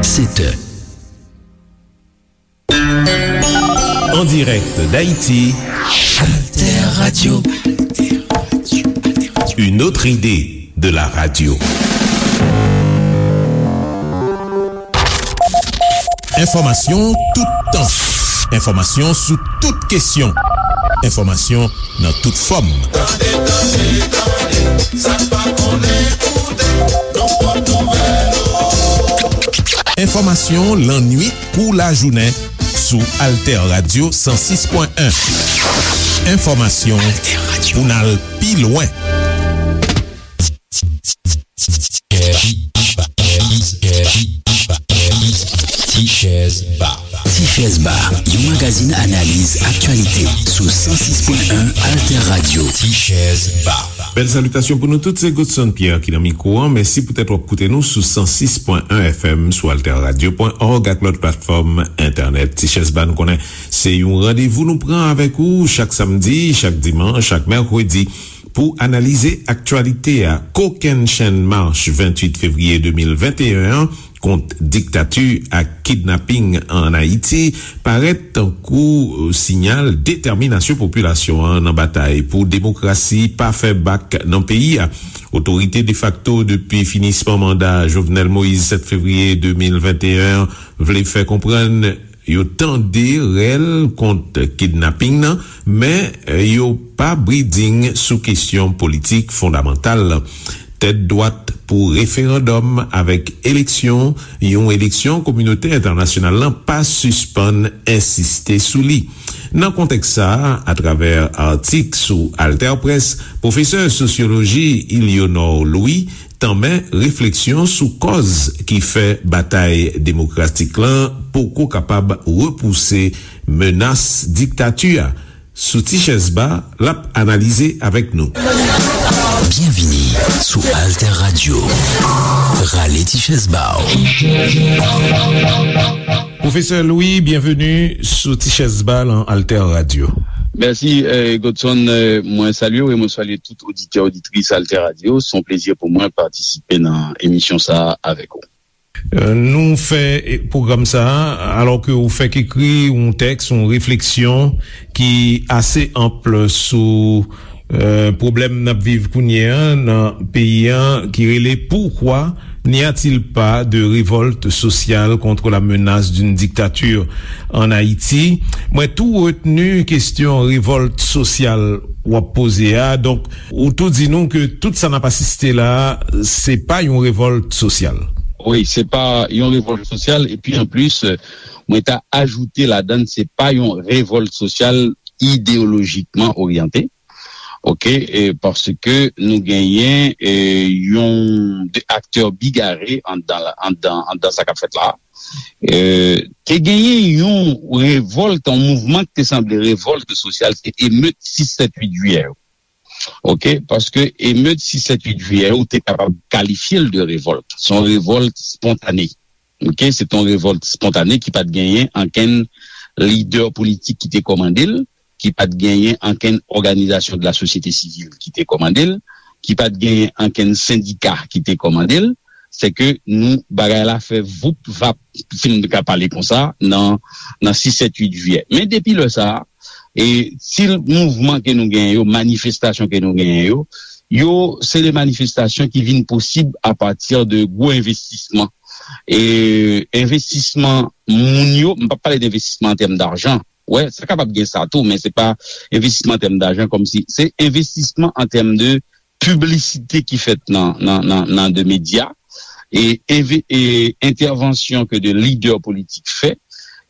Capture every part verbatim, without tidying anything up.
Sept heures. En direct d'Haïti, Alter Radio. Une autre idée de la radio. Enfòmasyon toutan. Enfòmasyon sou tout kesyon. Enfòmasyon nan tout fòm. Tande, tande, tande, sa n pa konnen koute, nan pwòp nouvèl ou. Enfòmasyon lannwit kou lajounen sou Alter Radio san sis pwen en. Enfòmasyon pou n al pi lwen. Tichèz Ba. Tichèz Ba, yon magazin analiz aktyalite sou san sis pwen en Alter Radio. Tichèz Ba. Bèl salitasyon pou nou tout, se Godson Pierre ki nan mikwo an. Mèsi poutèt w ap koute nou sou san sis pwen en F M sou alter radio pwen org ak lòt platfòm entènèt. Tichèz Ba, nou konnen se yon randevou nou pran avèk ou chak samdi, chak dimanch, chak mèkredi pou analize aktyalite a. Kokennchenn mach venntuit fevriye de mil venteyen an kont diktati ak kidnaping ann Ayiti parèt tankou siyal detèminasyon popilasyon an nan batay pou demokrasi pa fè bak nan peyi a. Otorite defakto depi finisman manda Jovenel Moïse sèt fevriye de mil venteyen an vle fè konprann yo tande rèl kont kidnaping nan, men yo pa briding sou kesyon politik fondamantal. Tèt dwat pou referandòm avèk eleksyon, yon eleksyon kominote entènasyonal lan pa sispann ensiste sou li. Nan kontèks sa a, atravè atik sou AlterPresse, pwofesè sosyoloji Ilionor Louis tanmen refleksyon sou kòz ki fè batay demokratik lan poko kapab repouse menas diktati a. Sou Tichèz Ba, l ap analize avèk nou. Byenvini sou Alter Radio. Rale Tichèz Ba w. Pwofesè Louis, byenveni sou Tichèz Ba lan Alter Radio. Mèsi, eh, Godson. Eh, mwen salye w e mwen salye tout oditè, oditris Alter Radio. Se yon plezi pou mwen patisipe nan emisyon sa a avèk ou. Eh, nou fè, eh, pwogram sa a, alò ke ou fèk ekri yon tèks, yon refleksyon ki ase anp sou, eh, pwoblèm n ap viv kounye a nan peyi a, ki rele Pourquoi n'y a-t-il pas de révolte sociale contre la menace d'une dictature en Haïti? Mwen tou retni kesyon revòlt sosyal w ap poze a. Donk, ou tou di nou ke tout sa n ap asiste la, se pa yon revòlt sosyal. Wi, se pa yon revòlt sosyal. Epi, anplis, mwen ta ajoute ladan l, se pa yon revòlt sosyal ideyolojikman oryante. Oke, e, paske nou genyen, e, yon de aktè bigare anndan, anndan, anndan sa k ap fèt la. E, te genyen yon revòlt, yon mouvman ki te sanble revòlt sosyal, se emet sis sèt uit jiyè yo. Oke, paske emet sis sèt uit jiyè yo, ou te kapab kalifye l de revòlt. Se yon revòlt spontane. Oke, se te yon revòlt spontane ki pa t genyen ankenn lidè politik ki te kòmande l, ki pa t genyen ankenn òganizasyon de la sosyete sivil ki te kòmande l, ki pa t genyen ankenn sendika ki te kòmande l. Se ke nou, bagay la fè voup vap, si m ka pale konsa, nan, nan sis sèt uit jiyè. Men depi lè sa a, e stil mouvman ke nou genyen yo, manifestasyon ke nou genyen yo, yo, se de manifestasyon ki vin posib apati de gwo envestisman. E envestisman moun yo, m p ap pale de envestisman an tèm dajan. Wè, sa kapab gen sa tou, men se pa envestisman an tèm dajan, kòmsi se envestisman an tèm de piblisite ki fèt nan, nan, nan, nan de medya, e, enve-, e entèvansyon ke de lidè politik fè,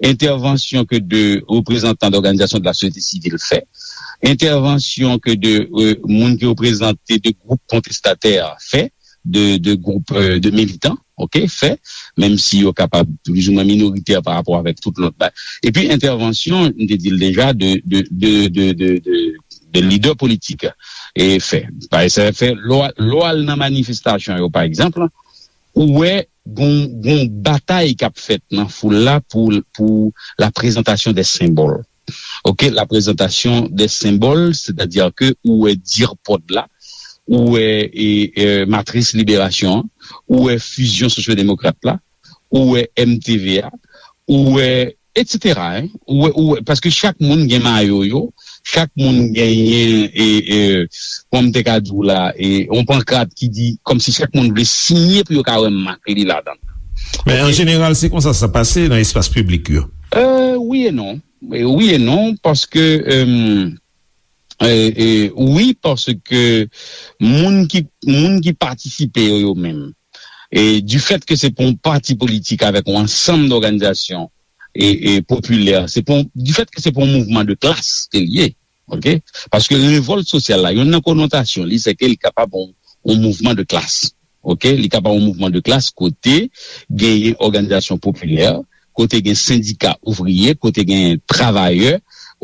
entèvansyon ke de reprezantan dòganizasyon de la sosyete sivil fè, entèvansyon ke de, e, moun ki reprezante de gwoup kontestatè fè, de, de gwoup, e, de militan, oke, fè, menm si yo kapab plizoumwen minoritè pa rapò avèk tout lòt bagay. Epi entèvansyon, m te di l deja, de, de, de lidè politik, e, fè. Paske sa fè, lè w al nan manifestasyon yo, pa egzanp, ou wè gon, gon batay k ap fèt nan foul la pou, pou la prezantasyon de senbòl. Oke, la prezantasyon de senbòl, sètadi ke ou wè dirpòd la, ou wè, e, e, matris liberasyon an, ou wè fizyon sosyodemokrat la, ou wè M T V a, ou wè, etsetera, en. Ou wè, ou wè, paske chak moun gen mayo yo, chak moun genyen, e, e, kòman m te ka di w la, e, yon pankrat ki di, kòmsi chak moun vle siyen pou yo ka wè mak li ladan l. Men an jeneral, se konsa sa pase nan espas piblik yo. Euh, wi e non. E wi e non, paske, euh, e, e, wi, paske moun ki, moun ki patisipe yo, yo menm, e du fait que se pa yon pati politik avèk yon ansanm dòganizasyon e, e popilè, se pa yon, du fait que se pa yon mouvman de klas ke l ye, ok? Paske revòlt sosyal la, youn nan konotasyon li, se ke li kapab yon, yon mouvman de klas, ok? Li kapab yon mouvman de klas kote genyen òganizasyon popilè, kote gen sendika ouvriye, kote gen travayè,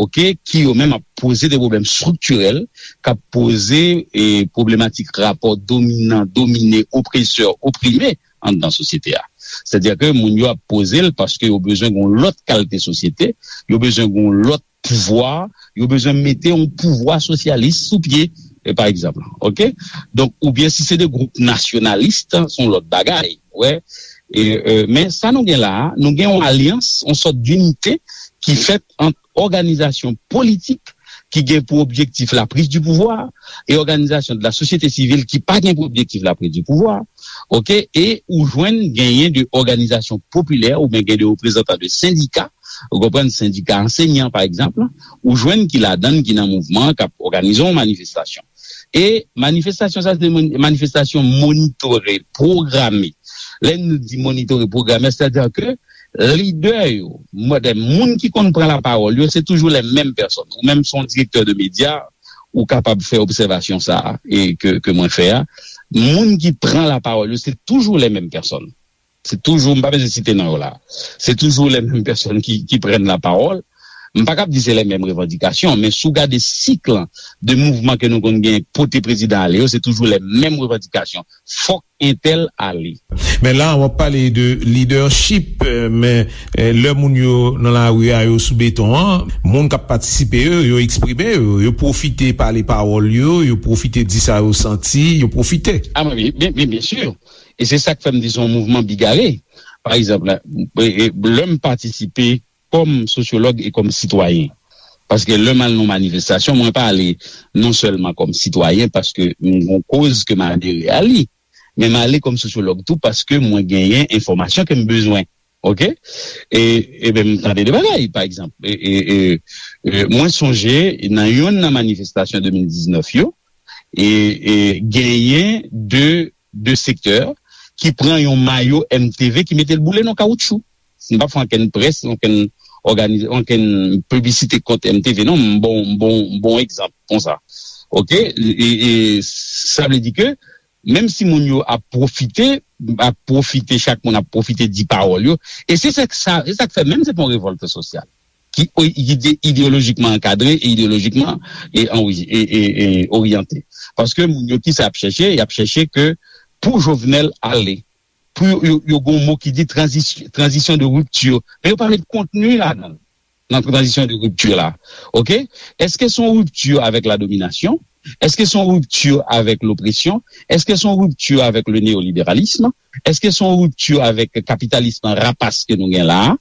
ok, ki yo menm ap poze de pwoblèm estriktirèl, k ap poze, e, pwoblematik rapò dominan, domine, opresè, oprime anndan sosyete a. Sètadi ke moun yo ap poze l paske yo bezwen gen yon lòt kalite sosyete, yo bezwen gen yon lòt pouvwa, yo bezwen mete yon pouvwa sosyalis sou pye, e, pa egzanp, ok? Donk, oubyen si se de gwoup nasyonalis, se yon lòt bagay, wè. E, e, men sa nou gen la a, nou gen yon alyans, yon sòt dinite ki fèt ant òganizasyon politik ki gen pou objektif la prise du pouvoir e òganizasyon de la société civile ki pa gen pou objektif la prise du pouvoir, ok? E ou jwenn genyen de òganizasyon popilè oubyen gen de reprezantan de sendika, ou konprann, sendika ansenyan, pa egzanp, ou jwenn ki ladan l, ki nan mouvman, k ap òganize yon manifestasyon. E manifestasyon sa, se de mon-, manifestasyon monitore, pwograme. Lè nou di monitore, pwograme, sètadi ke lidè yo, mwen, de moun ki konn pran lapawòl yo, se toujou les mêmes personnes. Ou menm, se yon direktè de medya, ou kapab fè obsèvasyon sa a, e ke, ke mwen fè a. Moun ki pran lapawòl yo, se toujou les mêmes personnes. Se toujou, m pa bezwen site non yo la. Se toujou les mêmes personnes ki, ki prennent la parole. M pa kab di se les mêmes revendications, men si w gade sik lan de mouvman ke nou konn gen pote prezidan ale yo, se toujou les mêmes revendications. Fòk entèl ale. Men la, w ap pale de leadership, eh, men, eh, lè moun yo nan lari a, yo sou beton an, moun k ap patisipe yo, yo eksprime yo, yo pwofite pale pawòl yo, yo pwofite di sa yo santi, yo pwofite. Ah, men, byen, byen, byen, byen si. E se sa k fè m di se yon mouvman bigare. Pa egzanp, la, e, e, lè m patisipe kòm sosyològ e kòm sitwayen. Paske lè m al nan manifestasyon, mwen pa ale non sèlman kòm sitwayen, paske m gen yon koz ke m adere a li, men m ale kòm sosyològ tou, paske mwen genyen enfòmasyon ke m bezwen. Ok? E, e ben, m tande de bagay, pa egzanp. E, e, e, e, mwen sonje, nan youn nan manifestasyon de mil diznèf yo, e, e, genyen de, de sektè ki pran yon mayo M T V ki mete l boule nan kawotchou. M p ap fè ankenn près, ankenn òganiz-, ankenn piblisite kont M T V, non, m bon, m bon, m bon egzanp konsa. Ok? E, e, sa vle di ke, menm si moun yo ap pwofite, ap pwofite, chak moun ap pwofite di pawòl yo, e se sa, sa, se sa k fè menm se pa yon revòlt sosyal ki o-, ki ide-, ideyolojikman ankadre e ideyolojikman e, anwi-, e, e, e oryante. Paske moun yo, ki sa y ap chèche? Y ap chèche ke pou Jovenel ale, pou yo, yo, yo gen yon mo ki di tranzis-, tranzisyon de ripti. Men yo pa met kontni ladan l, nan tranzisyon de ripti la. Ok? Èske se yon ripti avèk la dominasyon? Èske se yon ripti avèk lopresyon? Èske se yon ripti avèk le néolibéralisme? Èske se yon ripti avèk kapitalism rapas ke nou gen la a?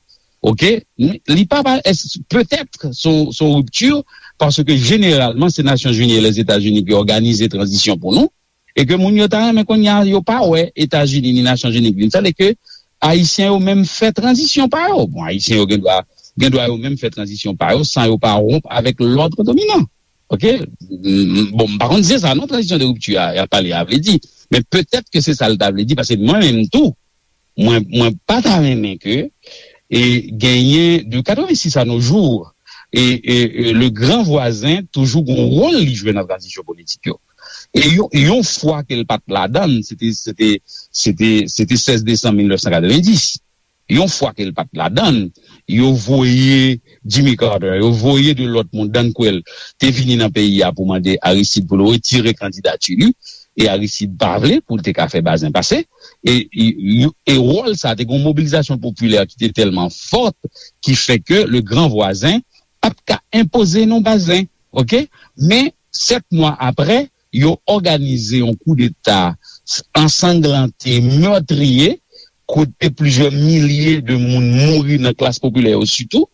Ok? Li pa, pa, èske, petèt, se yon, se yon ripti, paske jeneralman, se Nasyonzini e Lèzetazini ki òganize tranzisyon pou nou, e ke moun yo ta renmen kounye a, yo pa wè Etazini ni Nasyonzini k vin fè l, e ke Ayisyen yo menm fè tranzisyon pa yo. Bon, Ayisyen yo gen dwa, gen dwa yo menm fè tranzisyon pa yo, san yo pa wonp avèk lòd dominan. Ok? M, m, bon, m pa konn si se sa, non, tranzisyon de ripti a, y ap pale a vle di. Men petèt ke se sa l ta vle di, paske mwen menm tou, mwen, mwen pa ta renmen ke, e, genyen de katrevensis à nos jours, e, e, e, le gran vwazen toujou gon wòl li jwe nan tranzisyon politik yo. E yon, yon fwa ke l pa t ladan l, se te, se te, se te, se te sèz desanm mil nèf san katrevendiz. Yon fwa ke l pa t ladan l, yo voye Jimmy Carter, yo voye de lòt moun, Dan Quayle, te vini nan peyi a pou mande Aristide pou l retire kandidati li, e Aristide pa vle pou l te ka fè Bazin pase, e, e, e wòl sa, te gen yon mobilizasyon popilè ki te tèlman fòt, ki fè ke le gran vwazen pa t ka enpoze non Bazin, ok? Men, sèt mwa apre, yo òganize yon koudeta ansanglante, mètriye, kote plizyè milye de moun mouri nan klas popilè yo sitou,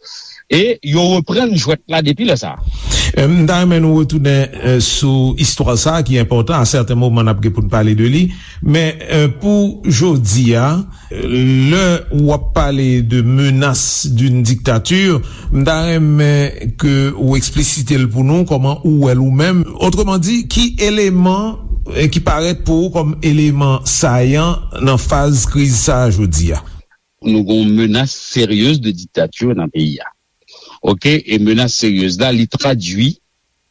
e yo reprann jwèt la depi lè sa a. M ta renmen nou retounen sou istwa sa a ki enpòtan. A sèten moman n ap gen pou n pale de li. Men pou jodi a, lè w ap pale de menace d'une dictature, m ta renmen ke ou eksplisite l pou nou, kòman ou wè l ou menm. Otreman di, ki eleman ki parèt pou ou kòm eleman sayan nan faz kriz sa a jodi a? Nou gen yon menas seryez de diktature nan peyi a. Oke, e menas seryez la, li tradui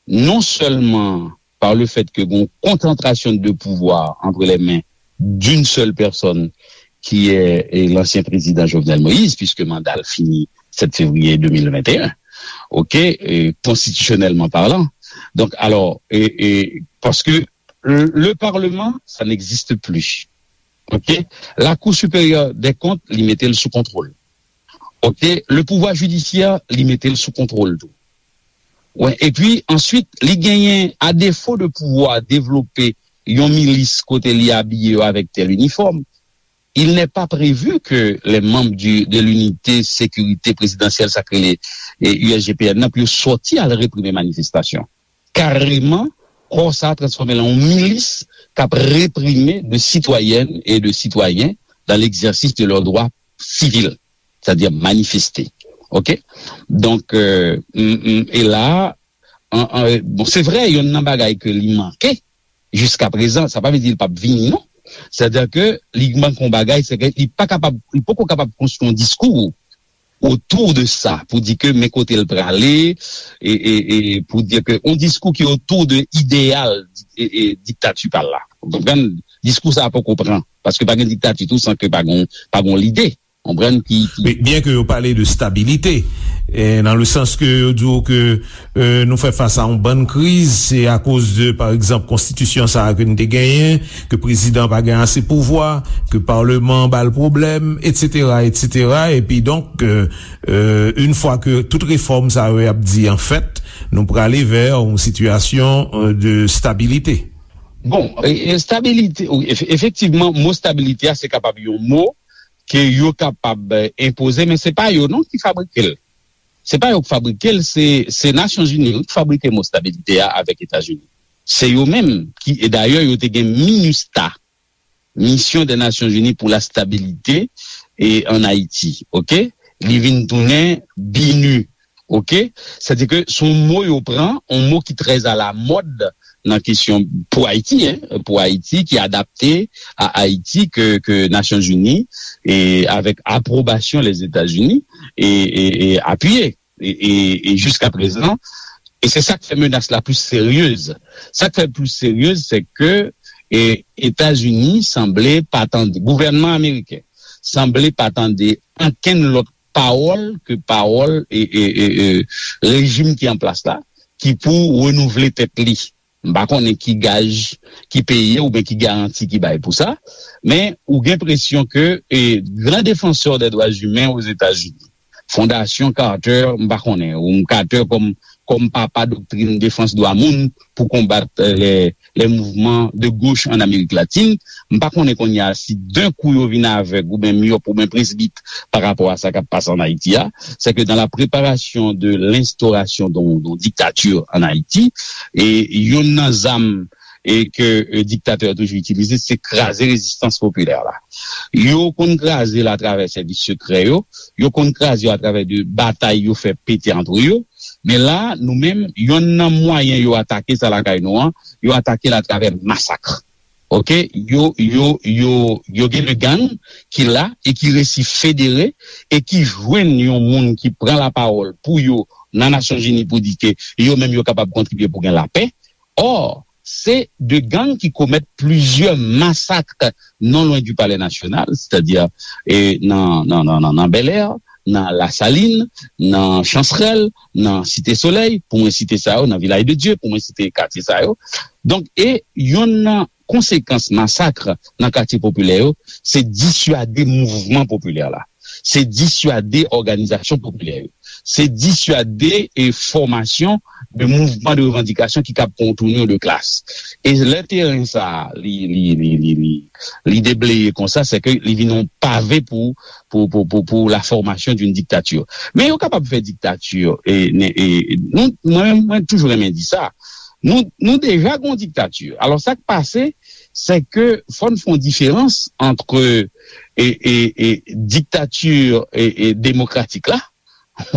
non sèlman par le fait que gon konsantrasyon de pouvwa entre les mains d'une seule personne qui est l'ancien président Jovenel Moïse, puisque manda l fini sèt fevriye de mil venteyen, oke, konstitisyonèlman palan. Donk, alò, e, e, paske le, le Parlement, ça n'existe plus. Oke? La Cour supérieure des comptes, li mete l sou kontwòl. Oke? Le pouvoir judiciaire, li mete l sou kontwòl tou. Wi, epi answit, li genyen, a defo de pouvwa devlope yon milis kote li abiye yo avèk tèl inifòm, il n'est pas prévu que les membres du, de l'unité sécurité présidentielle, sa k rele U S G P N nan, pou yo sòti al reprime manifestasyon. Kareman, kò sa a transfòme l an yon milis k ap reprime de citoyennes et de citoyens dans l'exercice de leurs droits civils, c'est-à-dire manifester. Oke? Donk, e la, bon, se vre, yonn nan bagay ke li manke jiska prezan, sa pa vle di li p ap vini, non. Sètadi ke li manke yon bagay, se ke li pa kapab, li poko kapab konstwi yon diskou otou de sa, pou di ke men kote l prale, e, e, e pou di ke yon diskou ki otou de ideyal e, e, diktati pa l la. Ou konprann? Diskou sa a poko pran, paske pa gen diktati tou san ke pa gen, pa gen lide. Konprann ki, ki... Byen ke yo pale de stabilite, e, nan le sans ke yo di w ke e, nou fè fas a yon bann kriz, se akoz de, pa egzanp, konstitisyon sa a ke n te genyen, ke prezidan pa gen ase pouvwa, ke paleman an ba l pwoblèm, etsetera, etsetera. Epi donk, e, e, yon fwa ke tout refòm sa yo y ap di, anfèt, nou prale vè yon sitiyasyon e, de stabilite. Bon, e, e, stabilite, wi, efe-, efektivman, mo stabilite a, se kapab yon mo ke yo kapab e, enpoze, men se pa yo non ki fabrike l. Se pa yo k fabrike l, se, se Nasyonzini wi, ki fabrike mo stabilite a avèk Etazini. Se yo menm ki, e dayè, yo te gen minista, Mission des Nations Unies pour la Stabilité, e, en Haïti, oke? Li vin tounen binu, oke? Sètadi ke se yon mo yo pran, yon mo ki trè a la mòd nan kesyon pou Ayiti, en, pou Ayiti, ki adapte a Ayiti ke, ke Nasyonzini, e avèk apwobasyon Lèzetazini, e, e, e apiye. E, e, e jiska prezan, e se sa k fè menas la plis seryez. Sa k fè l plis seryez, se ke e, Etazini sanble pa tande, gouvènman ameriken sanble pa tande ankenn lòt pawòl ke pawòl e, e, e, e, rejim ki an plas la, ki pou renouvle tèt li. M pa konnen ki gaj, ki peye oubyen ki garanti ki bay pou sa, men ou gen enpresyon ke e, gran defansè de dwa imen Ozetazini, Fondasyon Carter, m pa konnen, ou Carter kòm, kòm papa doktrin defans dwa moun pou konbat e, lè, lè mouvman de goch an Amerik Latin, m pa konnen kounye a si d'un coup yo vin avèg oubyen myòp oubyen presbit pa rapò a sa k ap pase an Ayiti a, c'est que dans la préparation de l'instauration d'un, d'un dictature en Haïti, e yonn nan zam e ke e, diktatè yo toujou itilize, se kraze rezistans popilè la. Yo konn kraze l atravè sèvis sekrè yo, yo konn kraze yo atravè de batay yo fè pete antre yo, men la, nou menm, yonn nan mwayen yo atake sa lakay nou an, yo atake l atravè masak. Oke, yo, yo, yo, yo gen de gang ki la e ki resi federe e ki jwenn yon moun ki pran lapawòl pou yo nan Nasyonzini pou di ke yo menm yo kapab kontribye pou gen lapè. Or, se de gang ki komèt plizyè masak non lwen di Palè Nasyonal, sètadi e, nan, nan, nan, nan, nan Bèlè, nan Lasalin, nan Chansrèl, nan Site Solèy, pou mwen site sa yo, nan Vilaj de Dye, pou mwen site katye sa yo. Donk, e yonn nan konsekans masak nan katye popilè yo, se diswade mouvman popilè la. Se diswade òganizasyon popilè yo. se diswade e fòmasyon de mouvman de revandikasyon ki kab pran yon tournure de klas. E lè teren sa a, li, li, li, li, li, li debleye konsa, se ke li vin yon pave pou, pou, pou, pou, pou la formation d'une dictature. Men yo kapab fè diktati, e, ne- e, nou, mwen, mwen toujou renmen di sa. Nou, nou deja gon diktati. Alò, sa k pase, se ke fò n fè yon diferans ant e, e, e, diktati e, e, demokratik la,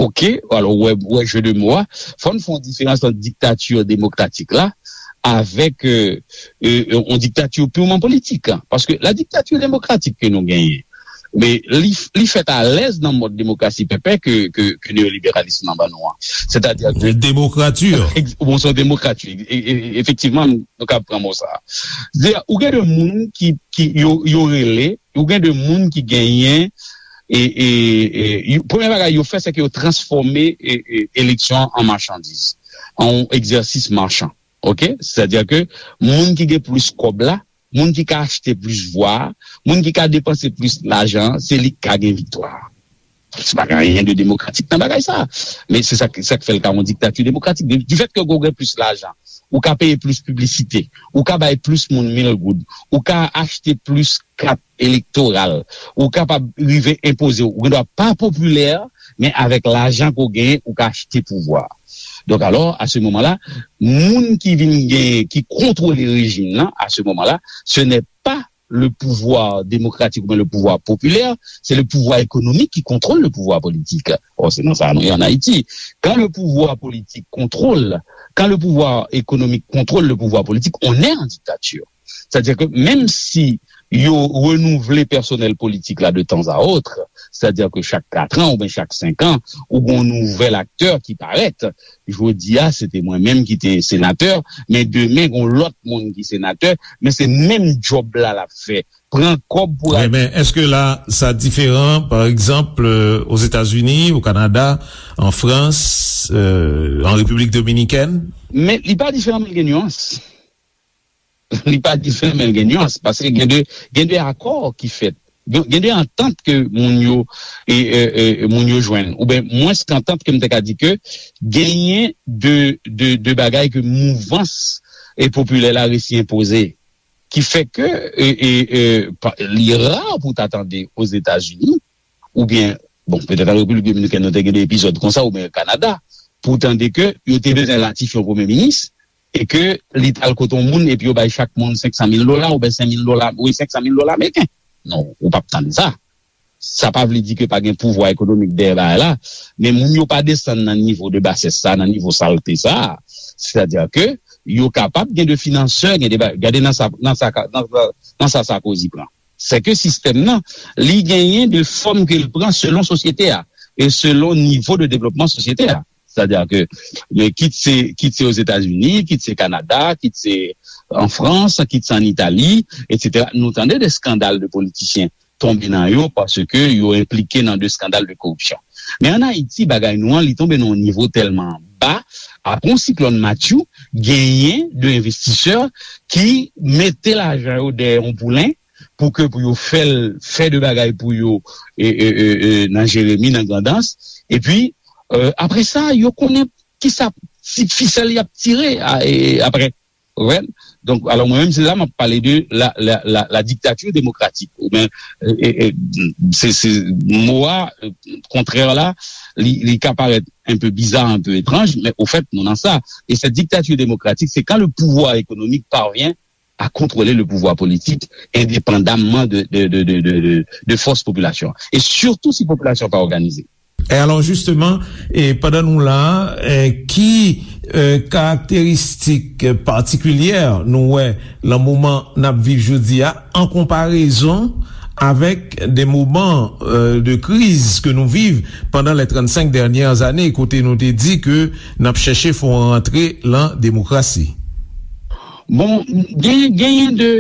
ok, alò, wè, wè jeu de mots a, fò n fè yon diferans ant diktati demokratik la avèk e, e, yon diktati purman politik. Paske la dictature démocratique ke nou genyen, men li, li fèt alèz nan mòd demokrasi pèpè ke, ke, ke neyoliberalis lan ban nou an. Sètadi ke Demokrati. Ex- bon, se yon demokrati. E- e- Efektivman, nou ka pran mo sa. Ou gen de moun ki, ki yo, yo rele, ou gen de moun ki genyen e, e, e, yo- premye bagay yo fè, se ke yo transfòme e, e, eleksyon an machandiz, an yon egzèsis machan. Ok? Sètadi ke moun ki gen plis kòb la, moun ki ka achte plis vwa, moun ki ka depanse plis lajan, se li k ka gen viktwa. Sa pa gen anyen de demokratik nan bagay sa. Men se sa, sa k fè l ka yon diktati demokratik. Du fait que ou gen plis lajan, ou ka peye plis piblisite, ou ka bay plis moun mil goud, ou ka achte plis kat elektoral, ou kapab rive enpoze, ou gendwa pa popilè, men avèk lajan ke w genyen, ou ka achte pouvwa. Donk alò, à ce moment-là, moun ki vin genyen, ki kontwole rejim nan, à ce moment-là, ce n'est pas le pouvoir démocratique ou bien le pouvoir populaire, c'est le pouvoir économique qui contrôle le pouvoir politique. Or, c'est dans ça nous en Haïti. Quand le pouvoir politique contrôle, quand le pouvoir économique contrôle le pouvoir politique, on est en dictature. C'est-à-dire que même si yo renouvle pèsonèl politik la de tan a ot, sètadi ke chak kat an oubyen chak senk an, ou gen yon nouvèl aktè ki parèt. Jodi a, se te mwen menm ki te senatè, men demen, gen yon lòt moun ki senatè, men se menm djòb la l ap fè. Pran kòb pou Wi, men èske la, sa diferan, pa egzanp, Ozetazini, o Kanada, an Frans, an Repiblik Dominikèn? Men li pa diferan, men l gen nyans. Li pa diferan, men l gen nyans, paske gen de, gen de akò ki fèt. Gen gen de antant ke moun yo e, e, e, moun yo jwenn, oubyen mwens ke antant ke m te ka di ke genyen de, de, de bagay ke mouvans e popilè la resi enpoze, ki fè ke e, e, e, pa- li ra pou ta tande Ozetazini, oubyen, bon, petèt an Repiblik Dominikèn nou te gen de epizòd konsa, oubyen Kanada, pou tande ke yo te bezwen ratifye yon premye minis, e ke li t al kote yon moun epi yo bay chak moun senk san mil dola oubyen senk mil dola, wi, senk san mil dola ameriken. Non, ou p ap tann sa. Sa pa vle di ke pa gen pouvwa ekonomik dèyè bagay la, men moun yo pa desann nan nivo de basès sa, nan nivo salte sa. Sètadi ke yo kapab gen de finansè, gen de ba- gade nan sa, nan sa, nan sa, nan sa Sarkozy pran. Se ke sistèm nan, li genyen de fòm ke l pran selon sosyete a e selon nivo de devlopman sosyete a. Sètadi ke, men kit se, kit se Ozetazini, kit se Kanada, kit se an Frans, kit se an Itali, etsetera. Nou tande de eskandal de politisyen tonbe nan yo paske yo enplike nan de eskandal de koripsyon. Men an Ayiti, bagay nou an, li tonbe nan yon nivo tèlman ba, apre yon siklòn Matthew, genyen de envestisè ki mete lajan yo dèyè yon poulen pou ke pou yo fè l fè de bagay pou yo e, e, e, e, nan Jeremi, nan Grandans. Epi, e, apre sa, yo konnen kisa ti fisèl y ap tire a, e, apre. Ou konprann? Donk, alò, mwen menm, se la m ap pale de la, la, la, la dictature démocratique. Oubyen, e, e, e, se, se mo a, e, kontrè la, li, li ka parèt un peu bizarre, un peu étrange, mais au fait, nou nan sa. Et cette dictature démocratique, c'est quand le pouvoir économique parvient à contrôler le pouvoir politique indépendamment de, de, de, de, de, de, de force population. Et surtout si population pa òganize. E alò, jisteman, e pandan nou la, e, ki e, karakteristik patikilyè nou wè nan moman n ap viv jodi a, an konparezon avèk de moman e, de kriz ke nou viv pandan les trente-cinq dernières années, kote nou te di ke n ap chèche fè yon rantre lan demokrasi? Bon, gen, genyen de,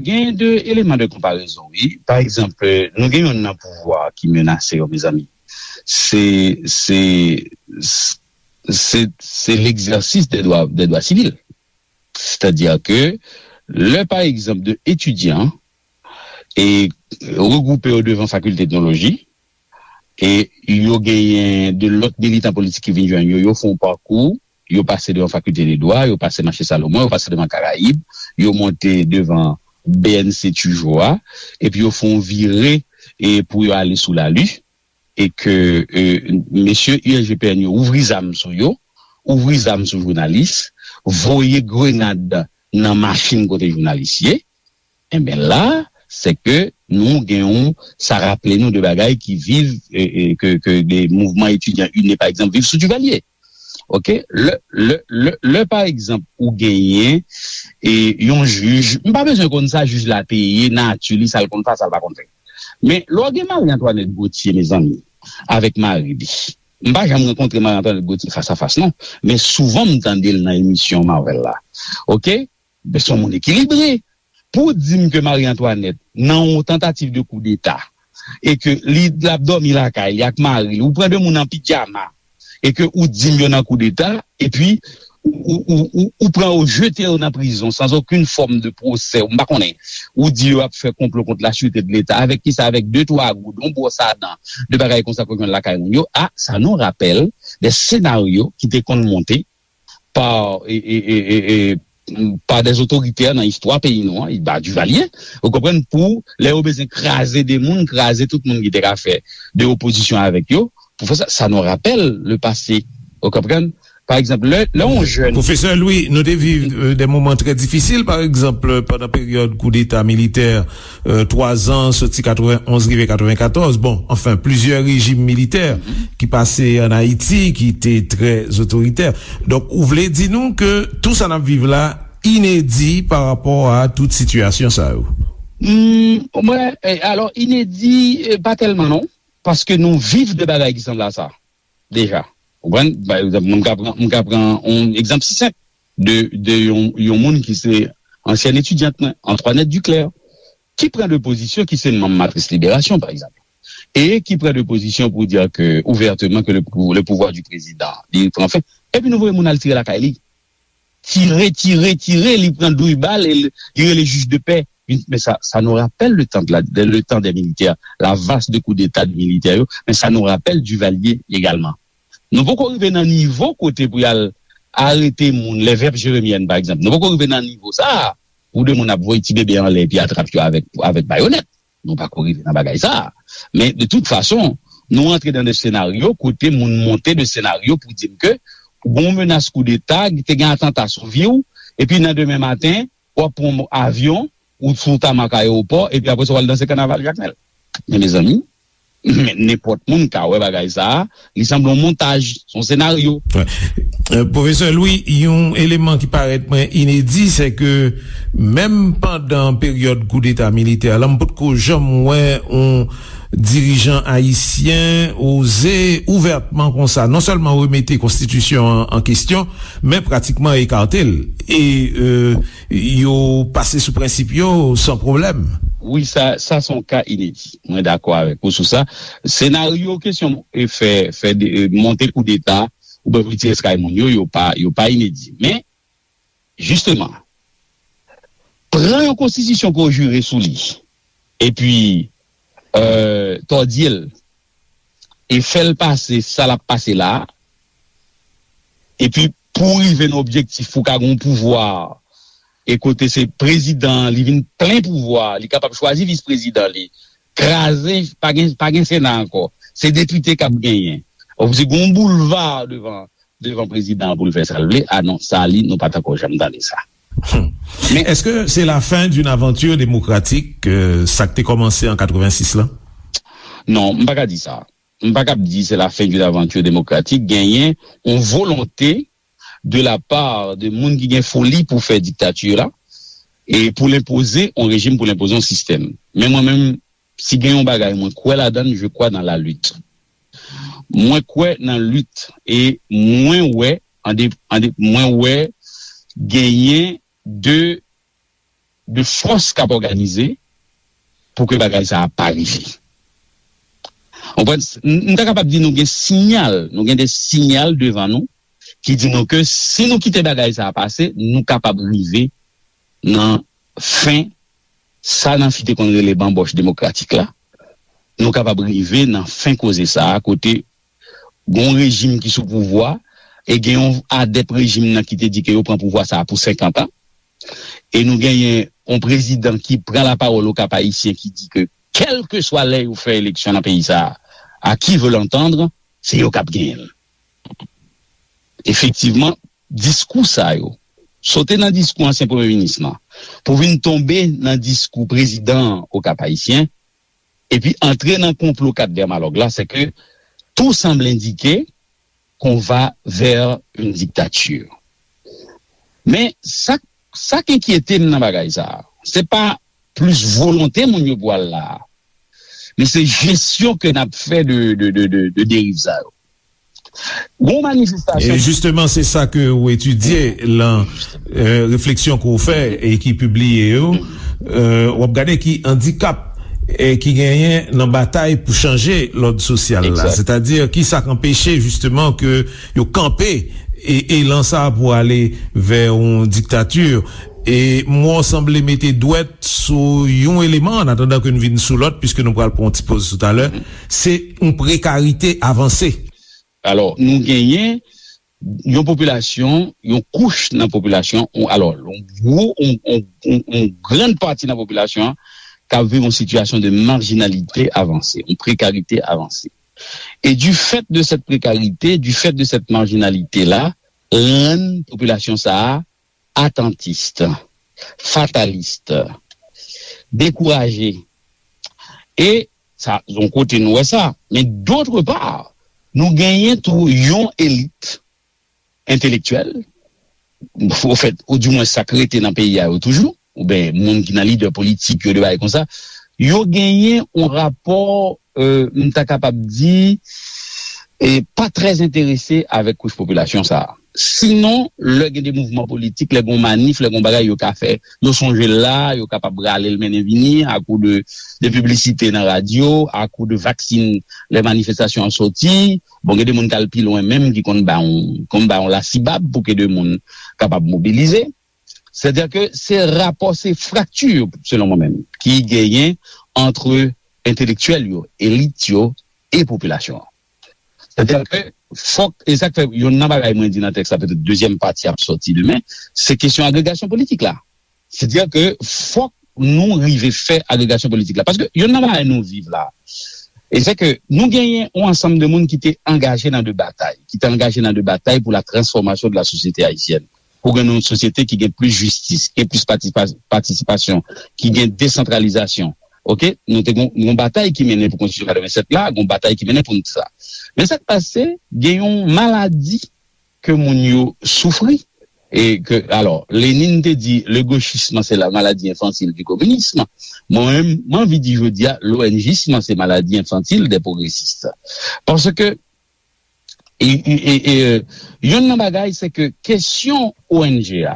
genyen de eleman de konparezon, wi. Pa egzanp, e, nou gen youn nan pouvwa ki menase yo, mezanmi. Se, se, se, se l'exercice des droits, des droits civils. Sètadi ke lè, pa egzanp, de etidyan e regwoupe yo devan fakilte etnoloji, E yo genyen de lòt militan politik ki vin jwenn yo, yo fè yon pakou, yo pase devan Fakilte de Dwa, yo pase Mache Salomon, yo pase devan Karayib, yo monte devan B N C Tujou a, epi yo fè yon vire e pou yo ale sou Lali, e ke e, mesye U S G P N yo ouvri zam sou yo, ouvri zam sou jounalis, voye grenad nan machin kote jounalis ye, enben la, se ke nou gen yon, sa raple nou de bagay ki viv, e, e, ke, ke de mouvman etidyan ini, pa egzanp, viv sou Duvalier. Oke? Lè, lè, lè, lè, pa egzanp, ou genyen e, yon jij, m pa bezwen konn sa jij la te ye, nati li, sa l konn fè, sa l pa konn fè. Men, lè w gen Marie Antoinette Gauthier, mezanmi, avèk mari li, m pa janm rankontre Marie Antoinette Gauthier fas a fas, non. Men souvan, m tande l nan emisyon Marvel la. Oke? Men se yon moun ekilibre. Pou w di m ke Marie Antoinette, nan yon tantativ de koudeta, e ke li l ap dòmi lakay li ak mari li, ou pran de moun an pijama, e ke ou di m yo nan koudeta, epi ou, ou, ou, ou, ou pran yo, jete yo nan prizon, sans aucune forme de procès, m pa konnen. Ou di yo ap fè konplo kont la sûreté de l'État. Avèk kisa? Avèk de twa goud, yon bwòs a dan, de bagay konsa ke w jwenn lakay moun yo. A, ça nous rappelle des scénarios ki te konn monte pa, e, e, e, e, e, pa des otoritè nan istwa peyi nou an, ba Duvalier, ou konprann, pou lè yo bezwen kraze de moun, kraze tout moun ki te ka fè de opozisyon avèk yo, pou fè sa, ça nous rappelle le passé, ou konprann? Pa egzanp, lè, lè yon jèn Pwofesè Louis, nou te viv euh, de moman trè difisil, pa egzanp, pandan peryòd koudeta militè, euh, twa zan, soti katrevenn onz rive katrevenkatòz. Bon, anfen, plizyè rejim militè ki pase ann Ayiti, ki te trè otoritè. Donk, ou vle di nou ke tou sa n ap viv la inedi pa rapò a tout sitiyasyon sa yo? Hmm, mwen, eh, alò, inedi, eh, pa tèlman non, paske nou viv de bagay ki sanble a sa, deja. Ou konprann? Pa egzanp, mwen ka pran, mwen ka pran yon egzanp si senp de, de yon, yon moun ki se ansyèn etidyant mwen, Antoinette Duclair, ki pran de pozisyon, ki se manm Matris Liberasyon, pa egzanp, e ki pran de pozisyon pou di ke, ouvèteman, ke le, pou- le pouvoir du président, li pran fen, epi nou voye moun al tire lakay li. Tire, tire, tire, li pran douz bal, e li, li rele jij de pè. Men sa, ça nous rappelle le temps de la, de- le temps des militaires, la vague de coup d'État de militaires, yo, men ça nous rappelle Duvalier également. Nou poko rive nan nivo kote pou y al arete moun, les veuves jérémiennes, pa egzanp. Nou poko rive nan nivo sa a, pou de moun ap voye ti bebe anlè epi atrap yo avèk, avèk bayonèt. Nou pako rive nan bagay sa a. Men, de tout fason, nou antre nan de senaryo kote moun monte de senaryo pou di m ke gon menas koudeta, te gen atanta sou vi w, epi nan demen maten, w ap pran yon avyon, ou sou tamak ayewopò, epi apre sa, w al danse kanaval Jakmèl. Men, mezanmi, men nenpòt moun ka wè bagay sa a, li sanble yon montaj, se yon senaryo. Wè. Euh, Pwofesè Louis, yon eleman ki parèt mwen inedi, se ke menm pandan peryòd koudeta militè la, m potko janm wè yon dirijan ayisyen oze ouvètman konsa, non sèlman remete konstitisyon an an kesyon, men pratikman ekate l. E euh, yo pase sou prensip yo san pwoblèm. Wi, sa, sa se yon ka inedi. Mwen dakò avèk ou sou sa. Senaryo kesyon e fè, fè de, e monte koudeta, oubyen pou tire eskay moun yo, yo pa, yo pa inedi. Men, jisteman, pran yon konstitisyon ke w jire sou li, epi euh, tòdye l, e fè l pase sa l ap pase la a, epi pou w rive nan objektif pou w ka gen yon pouvwa, e kote se prezidan an, li vin plen pouvwa, li kapab chwazi vis prezidan li, kraze, pa gen, pa gen Sena ankò, se depite k ap genyen. Ou di gen yon boulva devan, devan prezidan an pou l fè sa l vle. A non, sa li, nou pa t ankò janm tande sa. Men Est-ce que c'est la fin d'une aventure démocratique, euh, sa k te kòmanse an katrevensis la? Non, m pa ka di sa. M pa kab di se la fin d'une aventure démocratique. Genyen yon volonte de la part de moun ki gen foli pou fè diktati la, e pou l enpoze yon rejim, pou l enpoze yon sistèm. Men mwen menm, si gen yon bagay mwen kwè ladan l, je crois dans la lutte. Mwen kwè nan lit e mwen wè, an de, an de, mwen wè genyen de, de fòs k ap òganize pou ke bagay sa a pa rive. Ou konprann? M, m ta kapab di nou gen siyal, nou gen de siyal devan nou ki di nou ke si nou kite bagay sa a pase, nou kapab rive nan fen sa Nancy te konn rele banbòch demokratik la, nou kapab rive nan fen koze sa a, kote gen yon rejim ki sou pouvwa, e gen yon adèp rejim nan ki te di ke yo pran pouvwa sa a pou senkant an. E nou genyen yon prezidan ki pran lapawòl Okap Ayisyen ki di ke kèlkeswa lè yo fè eleksyon nan peyi sa a, à qui veut l'entendre, se yo k ap genyen l. Efektivman, diskou sa yo, sote nan diskou ansyen premye minis lan, pou vin tonbe nan diskou prezidan Okap Ayisyen, epi antre nan konplo kat Dermalog la, c'est que tout semble indiquer qu'on va vers une dictature. Men sa, sa k enkyete m nan bagay sa a, se pa plis volonte moun yo pou al la a, men se jesyon ke n ap fè de, de, de, de, de deriv sa yo. Gon manifestasyon. E jisteman, se sa ke ou etidye lan, euh, refleksyon ke ou fè e ki pibliye yo. Euh, w ap gade ki andikap e ki genyen nan batay pou chanje lòd sosyal la. Exact. Sètadi, ki sa k anpeche jisteman ke yo kanpe e elan sa pou ale vè yon diktati. E mwen w sanble mete dwèt sou yon eleman, an atandan ke n vin sou lòt, piske nou pral pran yon ti poz toutalè, se yon prekarite avanse. Alò, nou genyen yon popilasyon, yon kouch nan popilasyon, yon, alò, yon gwo, yon, yon, yon, yon grann pati nan popilasyon an k ap viv yon sitiyasyon de marjinalite avanse, yon prekarite avanse. E du fait de cette précarité, du fait de cette marginalité là, rann popilasyon sa a atantis, fatalis, dekouraje. E sa, yon kote nou wè sa. Men d'autre part, nou genyen tou yon elit entelektyèl, ofèt, oudimwen sa k rete nan peyi a yo toujou, oubyen moun ki nan lidè politik yo, de bagay konsa, yo genyen yon rapò, euh, m ta kapab di, e pa trè enterese avèk kouch popilasyon sa a. Sinon, lè gen de mouvman politik, lè gen manif, lè gen bagay yo ka fè, yo sonje l la, yo kapab rale l mennen vini, akou de, de piblisite nan radyo, akou de vaksin, lè manifestasyon an soti. Bon, gen de moun k al pi lwen menm, ki konn ba yon, konn ba yon lasibab pou ke de moun kapab mobilize. Sètadi ke se rapò, se frakti, selon mwen menm, ki genyen ant entelektyèl yo, elit yo e popilasyon an. Sètadi ke fòk, e sa k fè, youn nan bagay mwen di nan tèks la, petèt dezyèm pati ap sòti demen, se kesyon agregasyon politik la. Sètadi ke fòk nou rive fè agregasyon politik la. Paske youn nan bagay nou viv la, e se ke nou genyen yon ansanm de moun ki te angaje nan de batay, ki te angaje nan de batay pour la transformation de la société haïtienne. Pou gen yon sosyete ki gen plis jistis, ki gen plis patisipa-, patisipasyon, ki gen desantralizasyon. Oke? Nou te gon, gon batay ki mennen pou konstitisyon katrevennsèt la, gon batay ki mennen pou nou sa. Men sa k pase, gen yon maladi ke moun yo soufri. E ke, alò, Lenin te di, le gauchisme, c'est la maladie infantile du communisme. Mwen menm, mwen anvi di jodi a, l'O N J isme, c'est maladie infantile des progressistes. Paske, e, e, e, e, youn nan bagay, se ke kesyon O N G a,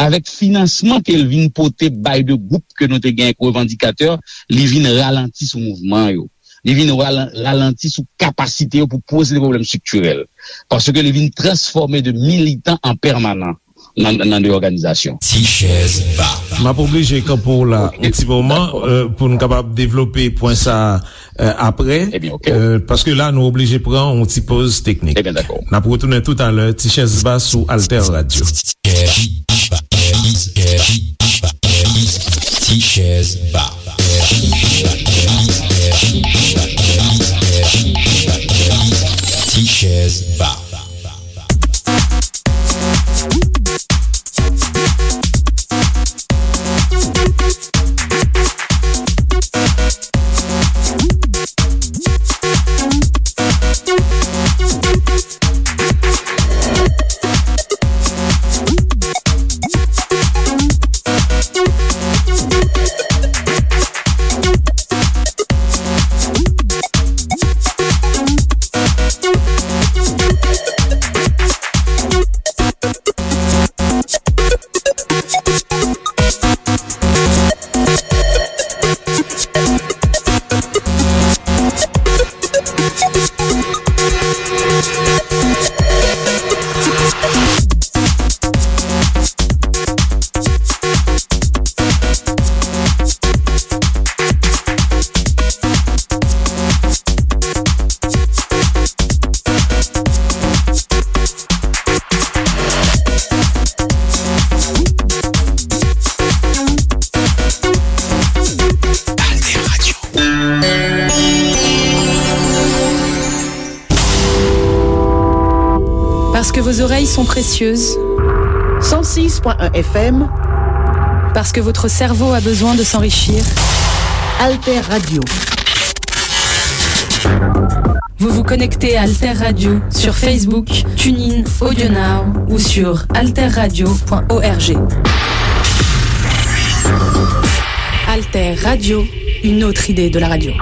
avèk finansman ke l vin pote bay de gwoup ke nou te gen ak revandikatè, li vin ralanti sou mouvman yo. Li vin ralan-, ralanti sou kapasite yo pou poze de pwoblèm estriktirèl. Paske li vin transfòme de militan an pèmanan nan, nan de òganizasyon. Ti chèz ba. M ap oblije kanpe w la yon ti moman, euh, pou n kapab devlope pwen sa a, euh, apre. Ebyen, oke. Euh, paske la, nou oblije pran yon ti poz teknik. Ebyen, dakò. N ap retounen toutalè, ti chèz ba sou Alter Radio. Ti chèz ba. Ti chèz ba. Parce que vos oreilles sont précieuses. Cent six point un F M. Parce que votre cerveau a besoin de s'enrichir. Alter Radio. Vous vous connectez à Alter Radio sur Facebook, TuneIn, AudioNow ou sur alterradio point org. Alter Radio, une autre idée de la radio.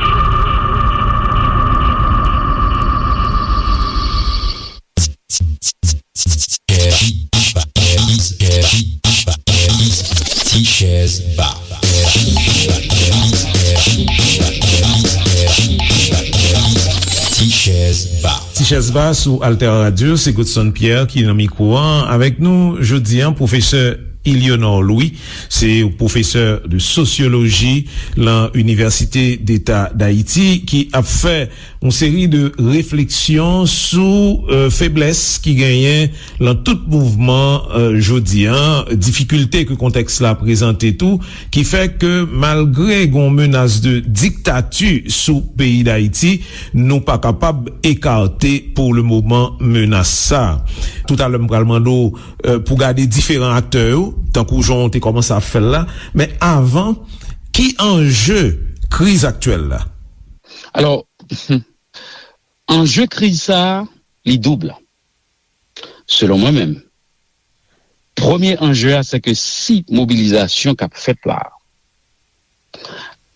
Ti chèz ba. Ti chèz ba. Ti chèz ba sou Alter Radio, se Godson Pierre ki nan mikwo an. Avèk nou jodi an, pwofesè Ilionor Louis, se pwofesè de sosyoloji lan Inivèsite Deta Dayiti, ki ap fè yon seri de refleksyon sou, euh, feblès ki genyen lan tout mouvman, euh, jodi an, difikilte ke kontèks la prezante tou, ki fè ke malgre gon menas de diktati sou peyi Dayiti, nou pa kapab ekate pou le moman menas sa. Toutalè, m pral mande w, euh, pou gade diferan aktè yo, tankou jan w te kòmanse ap fè l la, men avan, ki anje kriz aktyèl la? Alò, anje kriz sa a, li doub, selon mwen menm. Premye anje a, se ke si mobilizasyon k ap fèt la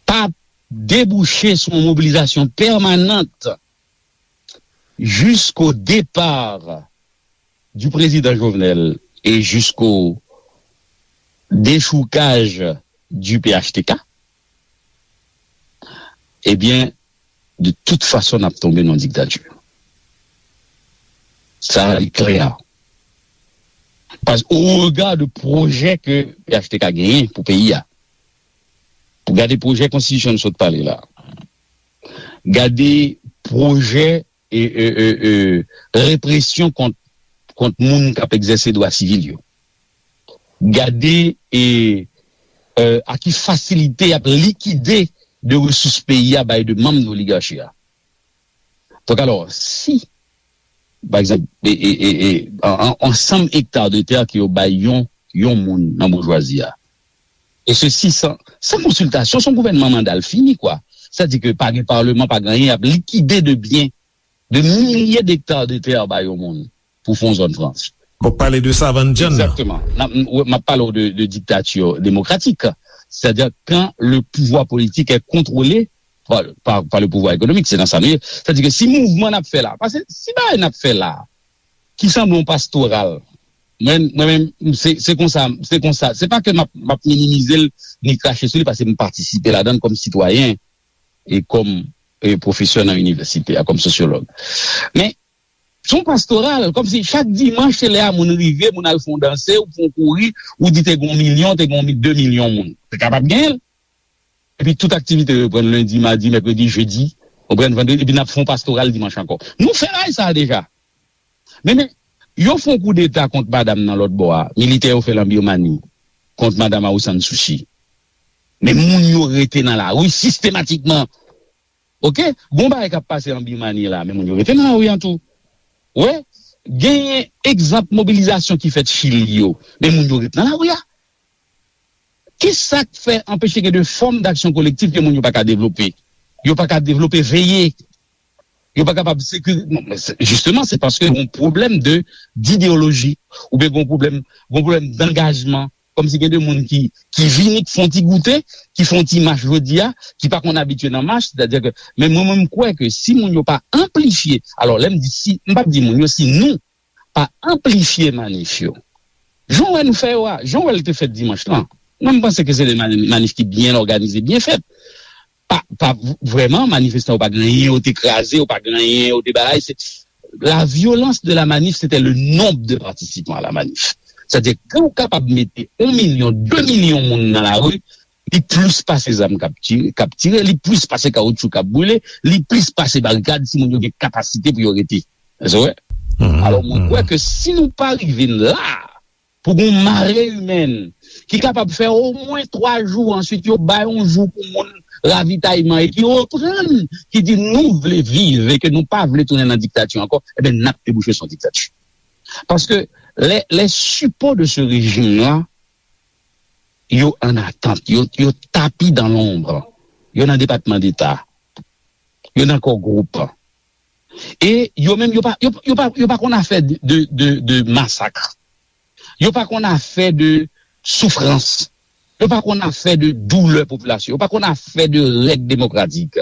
pa debouche sou yon mobilizasyon pèmanant jisko depa du président Jovenel et jusqu'au déchoukaj du P H T K, ebyen, de tout fason, n ap tonbe nan diktati. Sa, li klè. Paske, o rega de pwojè ke P H T K genyen pou peyi a, pou gade pwojè konstitisyon n sot pale la, gade pwojè e, e, e, e, represyon kont, kont moun k ap egzèse dwa sivil yo. Gade e, e, a ki fasilite y ap likide de resous peyi a bay de manm de oligachi a. Donk, alò, si, pa egzanp, e, e, e, e, an, an, ansanm ekta de tè ke yo bay yon, yon moun nan boujwazi a, e sesi san, san konsiltasyon, se yon gouvènman manda l fini, kwa. Sètadi ke pa gen palman, pa gen anyen, y ap likide de byen, de milye dekta de tè ba yon moun pou fè yon zòn franch. W ap pale de Savann John nan? Egzakteman. N ap, m, m ap pale w de, de diktati demokratik. Sètadi kan le pouvwa politik è kontwole pa, pa, pa le pouvwa ekonomik, se nan sa nou ye. Sètadi ke si mouvman n ap fè la, paske si bagay n ap fè la, ki sanble yon pastoral, mwen, mwen menm, se, se konsa, se konsa. Se pa ke m ap, m ap minimize l, ni krache sou li, paske m patisipe ladan l kòm sitwayen e kòm, e, pwofesè nan inivèsite a, kòm sosyològ. Men, se yon pastoral, kòmsi chak dimanch, se lè a moun rive, moun al fè yon danse, ou fè yon kouri, ou di te gen yon milyon, te gen yon mi-, de milyon moun. Te kapab genyen l. Epi tout aktivite yo reprann lendi, madi, mèkredi, jedi, reprann vandredi, epi n ap fè yon pastoral dimanch ankò. Nou fè bagay sa a deja. Men, men, yo fè yon koudeta kont madanm nan lòt bò a, militè yo fè l an Birmani, kont madanm Aung San Suu Kyi. Men moun yo rete nan lari sistematikman. Oke? Gon bagay k ap pase an Birmani la, men moun yo rete nan lari an tou. Wi, genyen egzanp mobilizasyon ki fèt Chili yo, men moun yo ret nan lari a. Kisa k fè anpeche gen de fòm d'aksyon kolektif ke moun yo pa ka devlope? Yo pa ka devlope veye. Yo pa kapab sekirize. Jisteman, se paske yon pwoblèm de, d'ideoloji, oubyen yon pwoblèm, yon pwoblèm d'angajman. Kòmsi gen de moun ki, ki vini, ki fè yon ti goute, ki fè yon ti mach jodi a, ki pa konn abitye nan mach, sètadi ke, men mwen, mwen, m kwè ke si moun yo pa anplifye, alò, lè m di si, m p ap di moun yo, si nou pa anplifye manif yo, jan w wè nou fè yo a, jan w wè l te fèt dimanch lan, mwen, m panse ke se de mani-, manif ki byen òganize, byen fèt. Pa, pa v-, vrèman, manifestan yo pa gen anyen, yo te kraze, yo pa gen anyen, yo te bagay. Se, la violence de la manif, c'était le nombre de participants à la manif. Sètadi, ke w kapab mete yon milyon, de milyon moun nan lari, li plis pase zam k ap tire, k ap tire, li plis pase kawoutchou k ap brile, li plis pase barikad si moun yo gen kapasite pou yo rete. Èske w wè? Alò, mwen kwè ke si nou pa rive la, pou gon mare imèn ki kapab fè omwen twa jou, answit yo bay yon jou pou moun ravitayman e ki reprann, ki di nou vle viv e ke nou pa vle tounen nan diktati ankò, ebyen, n ap debouche sou yon diktati. Paske lè, lè sipò de se rejim la, yo an atant, yo, yo tapi dan lonb, yo nan Depatman Deta, yo nan Core Group. E yo menm, yo pa, yo, yo pa, yo pa konn afè de, de, de, de masak. Yo pa konn afè de soufrans. Yo pa konn afè de doulè popilasyon. Yo pa konn afè de règ demokratik.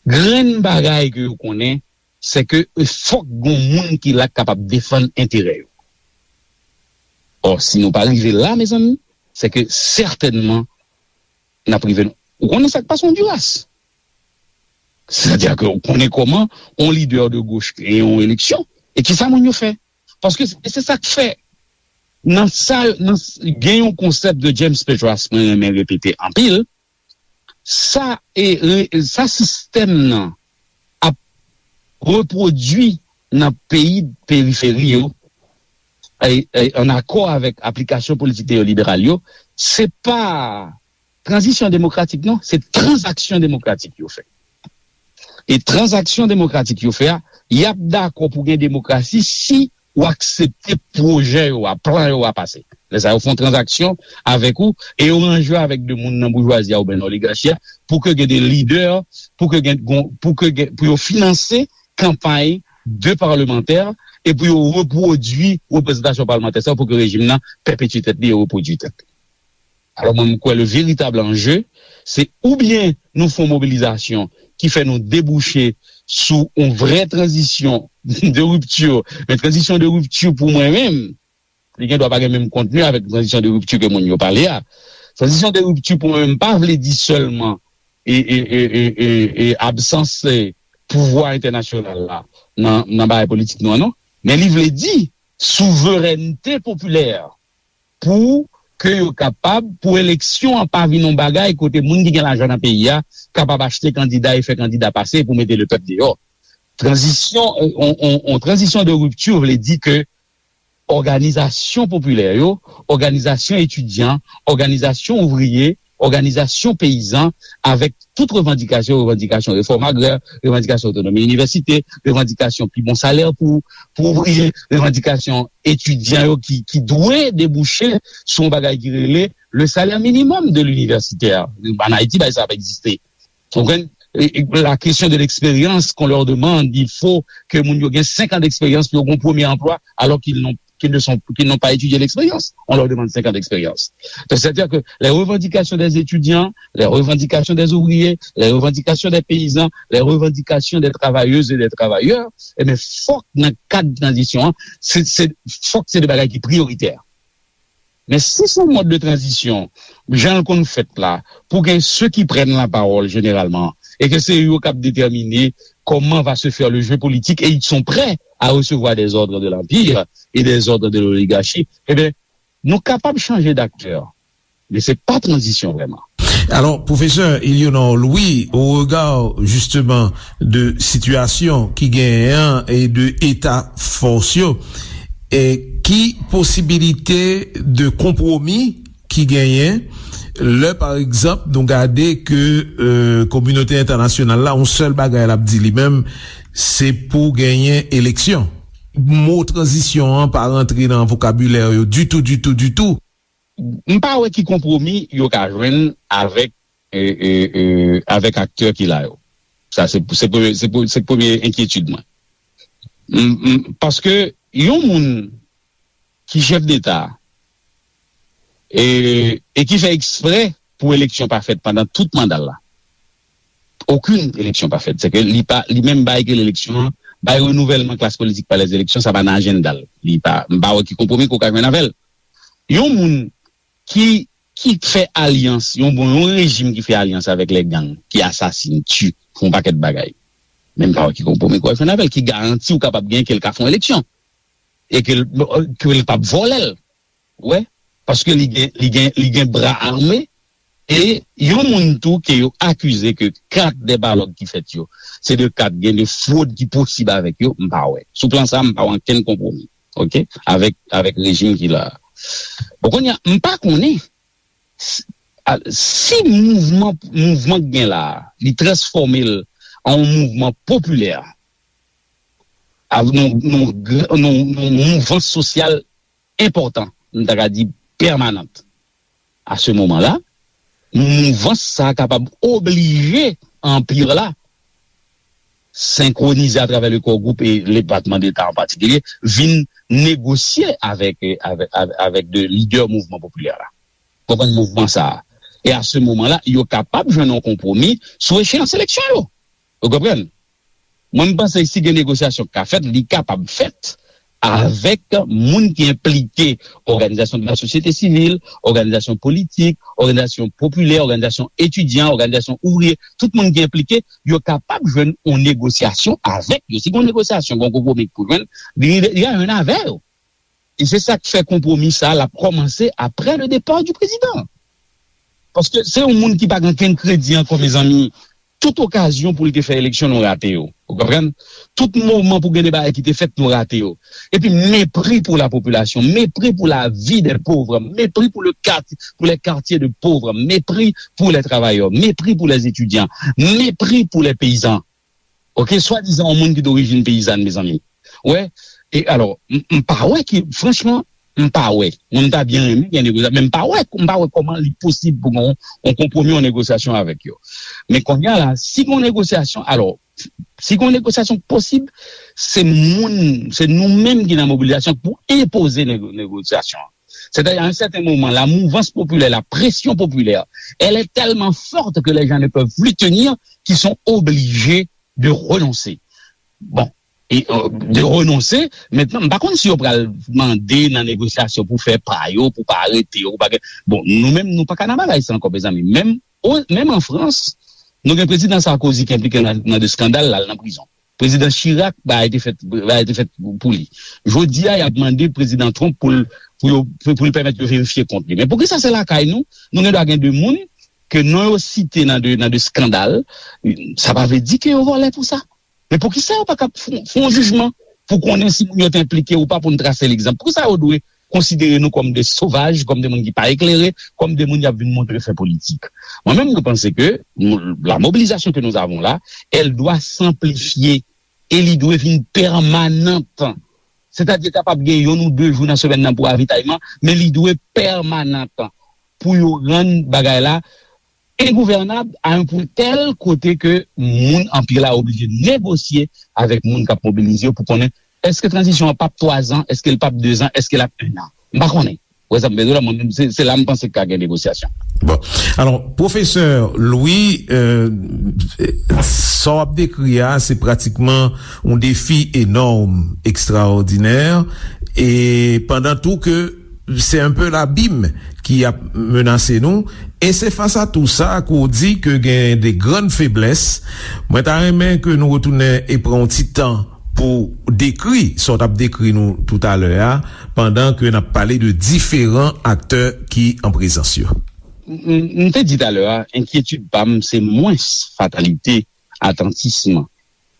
Grenn bagay ke yo konnen, se ke fòk gon moun ki la k kapab defann enterè yo. Ò, si nou pa rive la, mezanmi, se ke sètènman n ap rive. Ou konnen sa k pase Ondiras? Sètadi ke ou konnen kòman yon lidè de goch genyen yon eleksyon. E kisa moun yo fè? Paske se se sa k fè. Nan sa, nan, gen yon konsèp de James Petras mwen renmen repete anpil. Sa, e, re- sa sistèm nan ap repwodui nan peyi periferi yo, e, e, an akò avèk aplikasyon politik neyoliberal yo, se pa tranzisyon demokratik, non, se tranzaksyon demokratik yo fè. E tranzaksyon demokratik yo fè a, y ap dakò pou gen demokrasi si ou aksepte pwojè yo a, plan yo a pase. Lè sa yo fè yon tranzaksyon avèk ou e yo ranje avèk de moun nan boujwazi a oubyen nan oligachi a pou ke gen de lidè, pou ke gen, pou ke gen, pou yo finanse kanpay de palmantè e pou yo repwodui reprezantasyon palmantè sa pou ke rejim nan pèpetye tèt li e repwodui tèt li. Alò, mwen, m kwè le veritab anje, se oubyen nou fè yon mobilizasyon ki fè nou debouche sou yon vrè tranzisyon de ripti. Men tranzisyon de ripti pou mwen menm, li gen dwa pa gen menm kontni avèk tranzisyon de ripti ke moun yo pale a. Tranzisyon de ripti pou mwen menm pa vle di sèlman e, e, e, e, e, e absans e, pouvwa entènasyonal la nan, nan bagay politik nou an, non. Men li vle di souverènte popilè pou ke yo kapab, pou eleksyon an pa vin yon bagay kote moun ki gen lajan nan peyi a kapab achte kandida e fè kandida pase pou mete lepèp deyò. Tranzisyon, on, on, on tranzisyon de ripti vle di ke òganizasyon popilè yo, òganizasyon etidyan, òganizasyon ouvriye, òganizasyon peyizan, avèk tout revandikasyon, revandikasyon refòm agrè, revandikasyon otonomi inivèsite, revandikasyon pi bon salè pou, pou ouvriye, revandikasyon etidyan yo ki, ki dwe debouche sou yon bagay ki rele le salaire minimum de l'universitaire. An Ayiti, bagay sa ap egziste. Ou konprann? E, e, la question de l'expérience qu'on leur demande, il faut que moun yo gen senk an d'expérience pou yo gen yon premye anplwa, alors qu'ils n'ont, qu'ils ne sont, qu'ils n'ont pas étudié l'expérience. On leur demande cinq ans d'expérience. Donc, c'est-à-dire que les revendications des étudiants, les revendications des ouvriers, les revendications des paysans, les revendications des travailleuses et des travailleurs, eh bien, fòk nan kad tranzisyon an, se, se, fòk se de bagay ki priyoritè. Men si se yon mòd de tranzisyon, jan l konn fèt la, pou gen ceux qui prennent la parole généralement, e ke se yo k ap detèmine comment va se faire le jeu politique et ils sont prêts à recevoir des ordres de l'empire et des ordres de l'oligarchie, eh bien, nou kapab chanje d'aktè, men se pa tranzisyon vrèman. Alors, professeur Eleonor Louis, au regard justement de situation qui gagne et de état force, et qui possibilité de compromis ki genyen lè pa egzanp nou gade ke euh, kominote entènasyonal la yon sèl bagay l ap di li menm se pou genyen eleksyon. Mo tranzisyon an pa rantre nan vokabilè yo ditou ditou ditou. M pa wè ki konpwomi yo ka jwenn avèk e, e, e, avèk aktè ki la yo. Sa se, se, premye, se, pre- se premye enkyetid mwen. M- m- Paske yon moun ki chèf deta e, e ki fè eksprè pou eleksyon pa fèt pandan tout manda l la. Okenn eleksyon pa fèt. Se ke li pa li menm bay ke eleksyon an, bay renouvèlman klas politik pa lèzeleksyon, sa pa nan ajanda l. Li pa, m pa wè ki konpwomi ke w ka jwenn avè l. Yon moun ki ki fè alyans, yon bon yon rejim ki fè alyans avèk lè gang, ki asasin, ti, fè yon pakèt bagay. Men m pa wè ki konpwomi ke w ap jwenn avè l, ki garanti w kapab gen ke l ka fè yon eleksyon e ke l ke l p ap vòlè l. Ou wè? Paske li gen li gen li gen bra ame e yon moun tou ke yo akize ke kat de balòt ki fèt yo se de kat gen de fwod ki posib avèk yo, m pa wè. Sou plan sa a, m pa wè ankenn konpwomi. Oke? Avèk avèk rejim ki la a. Bon, kounye a, m pa konnen si mouvman mouvman k gen la a, li transfòme l an yon mouvman popilè, a, nan, nan, nan, nan mouvans sosyal enpòtan, m ta ka di pèmanant. A se moman la, mouvans sa a kapab oblije Anpi la senkwonize atravè le Core Group e Depatman Deta an patikilye, vin negosye avèk, avèk, avèk, avèk de lidè mouvman popilè la. Konprann mouvman sa a. E a se moman la, yo kapab jwenn yon konpwomi sou echeyans eleksyon yo. Ou konprann? Mwen, m panse si gen negosyasyon k ka fèt, li kapab fèt avèk moun ki enplike, òganizasyon de la sosyete sivil, òganizasyon politik, òganizasyon popilè, òganizasyon etidyan, òganizasyon ouvriye, tout moun ki enplike, yo kapab jwenn yon negosyasyon avèk yo. Si gen yon negosyasyon, gen yon konpwomi pou jwenn, li, li a jwenn avè yo. E se sa k fè konpwomi sa a l ap kòmanse apre le départ du président. Paske se yon moun ki pa gen okenn kredi ankò, mezanmi. Tout okazyon pou l te fè eleksyon, nou rate yo. Ou konprann? Tout moman pou gen de bagay ki te fèt, nou rate yo. Epi mepri pou la popilasyon, mepri pou la vi dè pov, mepri pou le quartier, pour les quartiers de pauvres, mepri pou les travailleurs, mepri pou les étudiants, mepri pou les paysans. Ok, swadizan yon moun ki dorijin peyizàn, mezanmi. Wè, e alò, m, m pa wè ki, franchman, m pa wè. Mwen, m ta byen renmen gen negosyasyon, men m pa wè, m pa wè kòman li posib pou gen yon, yon konpwomi, yon negosyasyon avèk yo. Men kounye a la, si gen yon negosyasyon, alò, si gen yon negosyasyon posib, se moun, se nou menm ki nan mobilizasyon pou enpoze nego-, negosyasyon. C'est-à-dire, à un certain moment, la mouvance populaire, la pression populaire, elle est tellement forte que les gens ne peuvent plus tenir, qu'ils sont obligés de renoncer. Bon, e, euh, de renoncer, mentnan, m pa konn si yo pral mande nan negosyasyon pou fè pa yo, pou pa arete yo, pou pa gen, bon, nou menm, nou pa ka nan bagay sa ankò, mezanmi. Menm, o, menm an Frans, nou gen prezidan Sarkozy ki enplike nan, nan de eskandal, l al nan prizon. Prezidan Chirac, bagay te fèt, bagay te fèt pou li. Jodi a, y ap mande prezidan Trump pou l, pou yo, pou, pou l pèmèt yo verifye kont li. Men poukisa se lakay nou, nou gen dwa gen de moun ke non yo site nan de, nan de eskandal, sa pa vle di ke yo vòlè pou sa. Men poukisa yo pa ka fè, fè yon jijman pou konnen si moun yo te enplike ou pa, pou n trase legzanp? Poukisa yo dwe konsidere nou kòm de sovaj, kòm de moun ki pa eklere, kòm de moun y ap vin montre fè politik? Mwen menm, mwen panse ke nou, la mobilisation que nous avons là, elle doit s'amplifier e li dwe vin pèmanant. Sètadi, kapab gen youn ou de jou nan semèn nan pou avitayman, men li dwe pèmanant pou yo rann bagay la engouvènab a yon pwen tèl kote ke moun anpil la oblije negosye avèk moun k ap mobilize yo pou konnen èske tranzisyon an p ap twa zan, èske l p ap de zan, èske l ap en an. M pa konnen. Wè sa m bezwen la, mwen menm, se, se la m panse ka gen negosyasyon. Bon. Alò, pwofesè Louis, euh, sa w ap dekri a, se pratikman yon defi enòm, ekstraòdinè, e pandan tou ke se un peu labim ki ap menase nou, e se fas a tou sa ke w di ke gen de grann feblès. Mwen ta renmen ke nou retounen e pran yon ti tan pou dekri sa w t ap dekri nou toutalè a, pandan ke n ap pale de diferan aktè ki an prezans yo. M, m, m te di talè a, enkyetid pa m, se mwens fatalite, atantism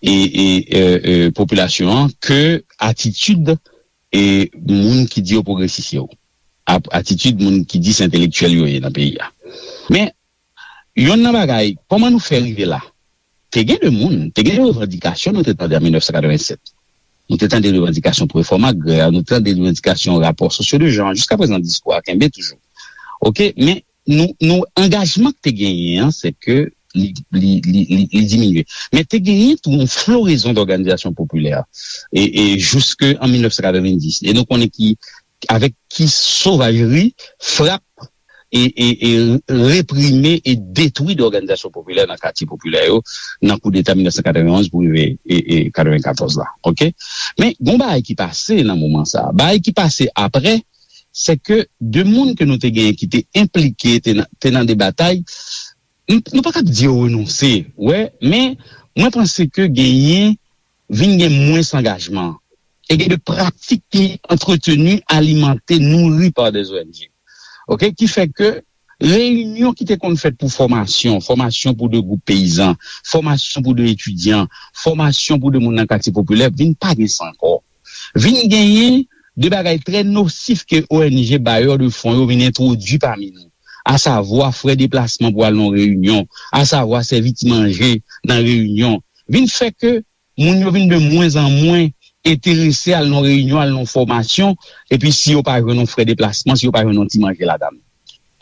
e, e, e, e, popilasyon an ke atitid e moun ki di yo pwogresis yo, ap-, atitid moun ki di se entelektyèl yo ye nan peyi a. Men, youn nan bagay, kòman nou fè rive la? Te gen de moun, te gen de revandikasyon nou te tande an mil nèf san katrevennsèt. Nou te tande revandikasyon pou refòm agrè, nou te tande revandikasyon rapò sosyo de jan. Jiskaprezan, diskou a kenbe toujou. Ok, men nou, nou angajman ki te genyen an, se ke li, li, li, li, li diminye. Men te genyen tou yon florezon dòganizasyon popilè e, e jiske an mil nèf san katrevenndis. E nou konnen ki, avèk ki sovajri, frap e, e, e reprime e detwi dòganizasyon popilè nan katye popilè yo, nan koudeta mil nèf san katrevenn onz pou rive e, e katrevenkatòz la. Ok? Men, gon bagay ki pase nan moman sa a. Bagay ki pase apre, se ke de moun ke nou te genyen ki te enplike, te nan, te nan de batay, n-, nou pa kab di yo renonse, wè, men mwen panse ke genyen, vin gen mwens angajman. E gen de pratik ki antreteni, alimante, nouri pa de O N G. Ok? Ki fè ke reyinyon ki te konn fèt pou fòmasyon, fòmasyon pou de gwoup peyizan, fòmasyon pou de etidyan, fòmasyon pou de moun nan katye popilè, vin pa gen sa ankò. Vin genyen de bagay trè nosif ke O N G, bayè de fon yo vin entwodui pami nou, asavwa frè deplasman pou al nan reyinyon, asavwa sèvi ti manje nan reyinyon, vin fè ke moun yo vin de mwens an mwens enterese al nan reyinyon, al nan fòmasyon, epi si yo pa jwenn yon frè deplasman, si yo pa jwenn yon ti manje ladan l.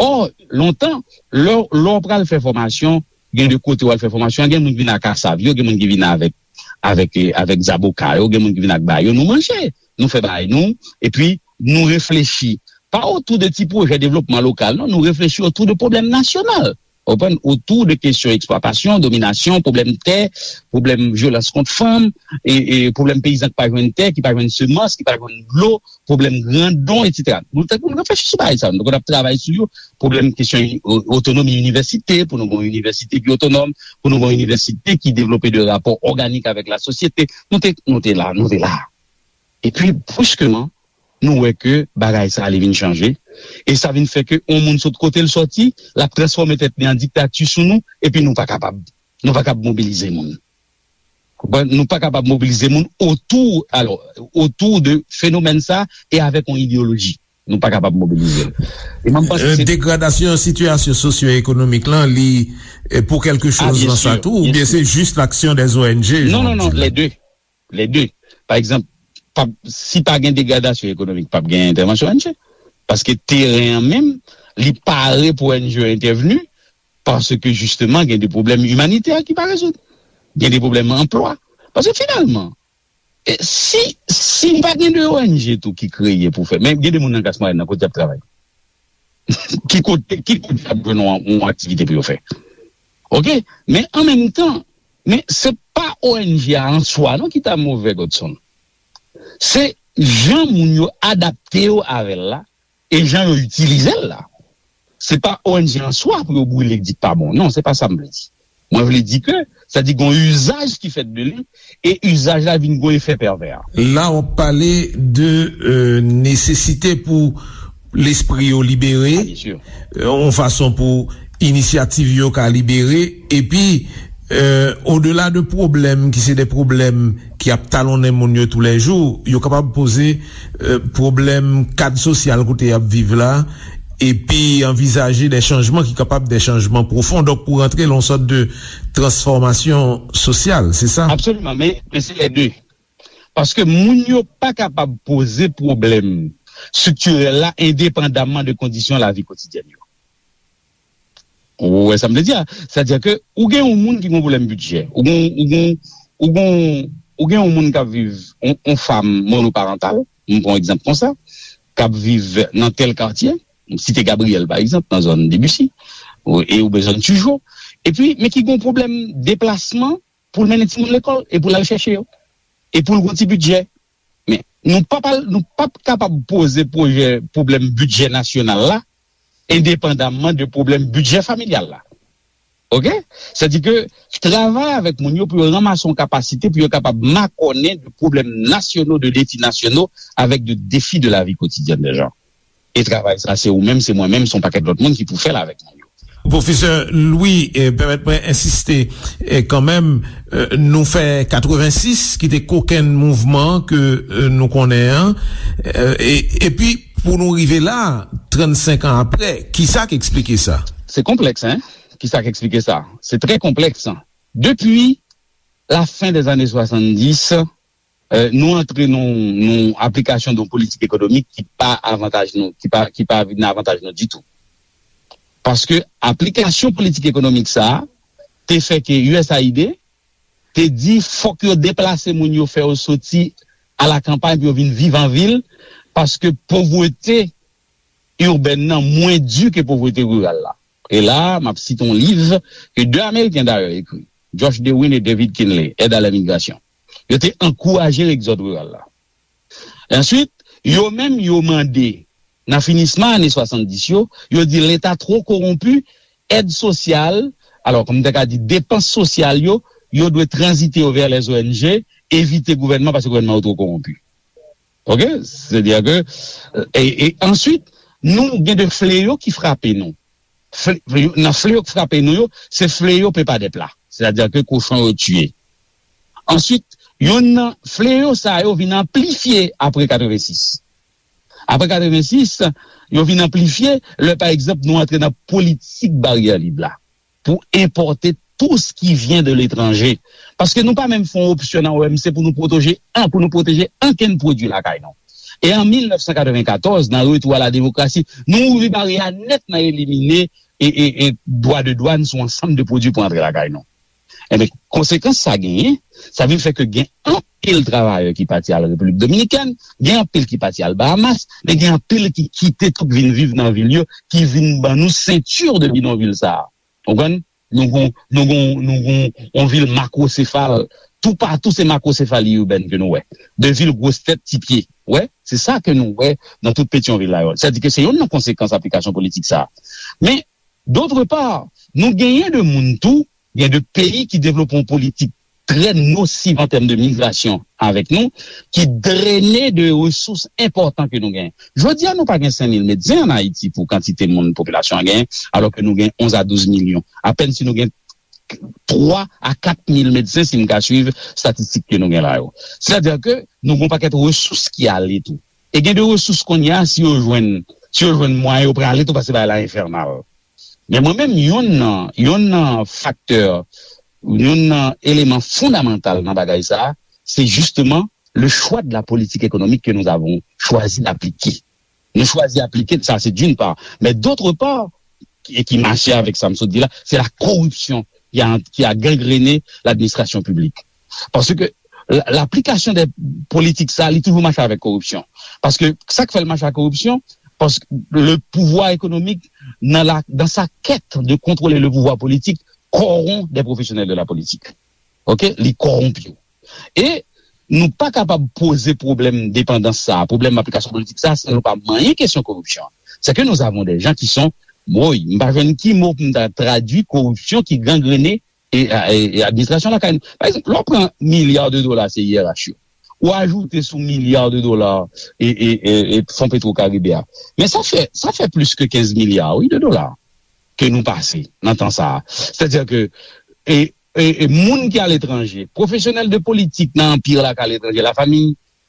Ò, lontan, lè, lè w pral fè fòmasyon, gen de kote w al fè fòmasyon, gen moun ki vin ak kasav yo, gen moun ki vin avèk, avèk, eh, avèk zaboka yo, gen moun ki vin ak bayo, nou manje, nou fè bagay nou, epi nou reflechi. Pa otou de ti pwojè devlopman lokal, non, nou reflechi otou de pwoblèm nasyonal. Ou konprann? Otou de kesyon eksplwatasyon, dominasyon, pwoblèm tè, pwoblèm vyolans kont fanm, e, e pwoblèm peyizan ki pa jwenn tè, ki pa jwenn semans, ki pa jwenn dlo, pwoblèm grandon, etsetera. Nou te konn reflechi sou bagay sa yo. Nou te konn ap travay sou yo. Pwoblèm kesyon o- otonomi inivèsite, pou nou gen yon inivèsite ki otonòm, pou nou gen yon inivèsite ki devlope de rapò òganik avèk lasosyete. Nou te, nou te la, nou te la. Epi, bruskeman, nou wè ke bagay sa a li vin chanje. E sa vin fè ke yon moun sot kote l sòti, l ap transfòme tèt li an diktati sou nou, epi nou pa kapab. Nou pa kapab mobilize moun. Konprann? Nou pa kapab mobilize moun otou, alò, otou de fenomèn sa e avèk yon ideyoloji. Nou pa kapab mobilize l. E mwen, m panse se degradasyon sitiyasyon sosyo-ekonomik lan, li eh, pou kèlke choz nan sa tou, oubyen se jis laksyon dè O N G? Non, non, non, lè de. Lè de. Pa egzanp, pa, si pa gen degradasyon ekonomik, p ap gen entèvansyon O N G. Paske teren an menm, li pare pou O N G yo entèvni, paske jisteman, gen de pwoblèm imanitè ki pa rezoud. Gen de pwoblèm anplwa. Paske finalman, e si, si pa gen de O N G tou ki kreye pou fè, men gen de moun nan Gras Mwayen nan kote y ap travay. Ki kote, ki kote y ap jwenn yon, yon aktivite pou yo fè? Oke? Men an menm tan, men se pa O N G a an swa non ki ta move, Godson. Se jan moun yo adapte yo avè l la, e jan yo itilize l la. Se pa O N G an swa pou yo brile, di pa bon. Non, se pa sa m vle di. Mwen vle di ke, sa di gon izaj ki fèt de li, e izaj la vin gon efè pèvè. La, w ap pale de euh, nesesite pou lespri yo libere, yon fason pou inisyativ yo ka libere, epi euh, odela de pwoblèm ki se de pwoblèm ki ap talonnen moun yo toulèjou, yo kapab poze euh, pwoblèm kad sosyal kote y ap viv la, epi anvizaje de chanjman ki kapab de chanjman pwofon. Donk, pou rantre lan yon sòt de transfòmasyon sosyal, se sa? Absoliman, men, men se lè de. Paske moun yo pa kapab poze pwoblèm estriktirèl la endepandamman de kondisyon lavi kotidyèn yo. Ou wè sa m vle di a? Sètadi ke ou gen yon moun ki gen yon pwoblèm bidjè, ou gen, ou gen, ou gen, ou gen yon moun k ap viv, yon, yon fanm monoparantal, m pran yon egzanp konsa, k ap viv nan tèl katye, m site Gabriyèl pa egzanp, nan zòn Debussy, ou, e oubyen zòn Tijo, epi, men ki gen yon pwoblèm deplasman pou l mennen timoun lekòl, e pou l al chèche yo, e pou l gen yon ti bidjè. Men, nou p ap al, nou p ap kapab poze pwojè, pwoblèm bidjè nasyonal la, endepandamman de pwoblèm bidjè familyal la. Oke? Sètadi ke travay avèk moun yo pou yo ranmase yon kapasite pou yo kapab makònen de pwoblèm nasyonal, de defi nasyonal, avèk de defi de lavi kotidyèn de jan. E travay sa, se ou menm, se mwen menm, se yon pakèt lòt moun ki pou fè l avèk moun yo. Pwofesè Louis, eh, pèmèt mwen ensiste, eh, kanmenm, eh, nou fè katrevensis, ki te kokenn mouvman ke eh, nou konnen an, eh, e, epi pou nou rive la, trannsenk an apre, kisa k eksplike sa? Se konplèks, en? Kisa k eksplike sa? Se trè konplèks. Depi la fen dè zane swasanndis, eh, nou antre nan, nan aplikasyon de yon politik ekonomik ki pa avantaj nou, ki pa, ki pa vin nan avantaj nou ditou. Paske aplikasyon politik ekonomik sa a te fè ke U S A I D te di fòk yo deplase moun yo, fè yo soti a la kanpay pou yo vin viv an vil, paske povrete irbèn nan mwen di ke povrete riral la. E la, m ap site yon liv ke de Ameriken dayè ekri, Josh Dewin e David Kinley, Aide à l'immigration. Yo te ankouraje egzòd riral la. Answit, yo menm, yo mande, nan finisman ane swasanndis yo, yo di Leta two kowonpi, èd sosyal, alò, kòm m te ka di, depans sosyal yo, yo dwe tranzite yo vè lè O N G, evite gouvènman, paske gouvènman yo two kowonpi. Oke? Sètadi ke, e, e answit, nou gen de fleyo ki frape nou. Fle, nan fleyo k frape nou yo, se fleyo pepa dèp la. Sètadi ke kochon yo tiye. Answit, youn nan fleyo sa yo vin anplifye apre katrevensis. Apre katrevensis, yo vin anplifye lè, pa egzanp, nou antre nan politik baryè lib la pou enpòte tout ce qui vient de l'étranger. Paske nou pa menm fè yon opsyon nan O M C pou nou pwoteje an, pou nou pwoteje ankenn pwodui lakay nou. E an mil nèf san katrevenkatòz, nan retou a la demokrasi, nou ouvri baryè a nèt nan elimine e, e, e dwa de dwàn sou ansanm de pwodui pou antre lakay nou. Enben, konsekans sa genyen, sa vin fè ke gen anpil travayè ki pati al Repiblik Dominikèn, gen anpil ki pati al Bahamas, men gen anpil ki kite tout vin viv nan vil yo, ki vin ban nou sentir de bidonvil sa a. Ou konprann? Nou gon, nou gon, nou gon yon vil makwosefal. Toupatou se makwosefali ibèn ke nou wè. De vil gwo tèt, ti pye. Wè, se sa ke nou wè nan tout Petyonvil la yo. Sètadi ke se youn nan konsekans aplikasyon politik sa a. Men, dotre pa, nou genyen de moun tou, gen de peyi ki devlope yon politik trè nosiv an tèm de migrasyon avèk nou, ki drene de resous enpòtan ke nou genyen. Jodi a, nou pa gen senk mil medsen ann Ayiti pou kantite moun popilasyon an genyen, alò ke nou gen onz a douz milyon. Apèn si nou gen twa a kat mil medsen, si m ka swiv estatistik ke nou gen la yo. Sètadi ke nou gen yon pakèt resous ki ale tou. E gen de resous kounye a, si yo jwenn, si yo jwenn mwayen, yo prale tou, paske bagay la enfènal. Men mwen menm, youn nan, youn nan faktè, youn nan eleman fondamantal nan bagay sa a, se justement le choix de la politique économique que nous avons choisi d'appliquer. Nou chwazi aplike, sa se d'une part. Men d'autre part, e ki mache avèk sa m sot di la, se la koripsyon ki a, ki a gangrene ladministrasyon piblik. Paske la, laplikasyon de politik sa, li toujou mache avèk koripsyon. Paske sa k fè l mache ak koripsyon, paske le pouvoir économique, dans la, dans sa quête de contrôler le pouvoir politique, corrompt des professionnels de la politique. Ok? Li kòwonpi yo. E nou pa kapab poze pwoblèm depandans sa a, pwoblèm aplikasyon politik sa a, san nou pa manyen kesyon koripsyon an. C'est que nous avons des gens qui sont, woy, m pa jwenn ki mo pou m ta tradui koripsyon ki gangrene e, e, e administrasyon lakay nou. Pa egzanp, lè w pran milya de dola C I R H yo, ou ajoute sou milya de dola e, e, e, e Fon Petro Karibe a. Men sa fè, sa fè plis ke kenz milya, wi, de dola ke nou pase nan tan sa a. Sètadi ke, e, e, e moun ki aletranje, pwofesyonèl de politik nan anpi la k aletranje, lafanmi,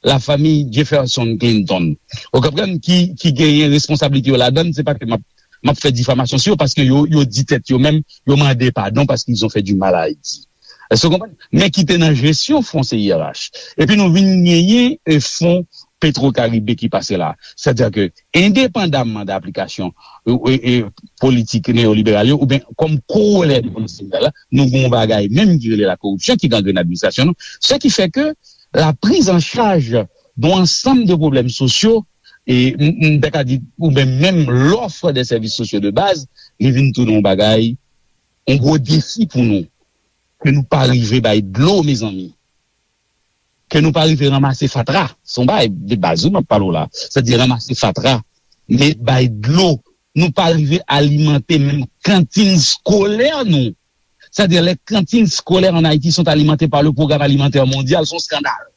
lafanmi Jefferson Clinton. Ou konprann ki, ki genyen responsablite yo ladan l, se pa ke m ap, m ap fè difamasyon sou yo, paske yo, yo di tèt yo menm, yo mande padon paske ils ont fait du mal à Haïti. Èske w konprann? Men ki te nan jesyon fon C I R H. Epi nou vin genyen, e, fon Petro Karibe ki pase la. Sètadi ke, endepandamman de aplikasyon, e, e, e, politik neyoliberal yo, oubyen kòm kowolè de politik neoliberal la, nou gen yon bagay menm ki rele la koripsyon ki gangrene administrasyon nou. Ce qui fait que la prise en charge d'un ensemble de problèmes sociaux, e m, m ta ka di, oubyen menm l'offre des services sociaux de base, li vin tounen yon bagay, yon gwo defi pou nou. Ke nou pa rive bay dlo, mezanmi. Ke nou pa rive ranmase fatra. Se yon bagay de baz, wi, m ap pale w la. Sètadi ranmase fatra, men bay dlo. Nou pa rive alimante menm kantin skolè nou. Sètadi les cantines scolaires en Haïti sont alimentées par le Programme Alimentaire Mondial, se yon eskandal.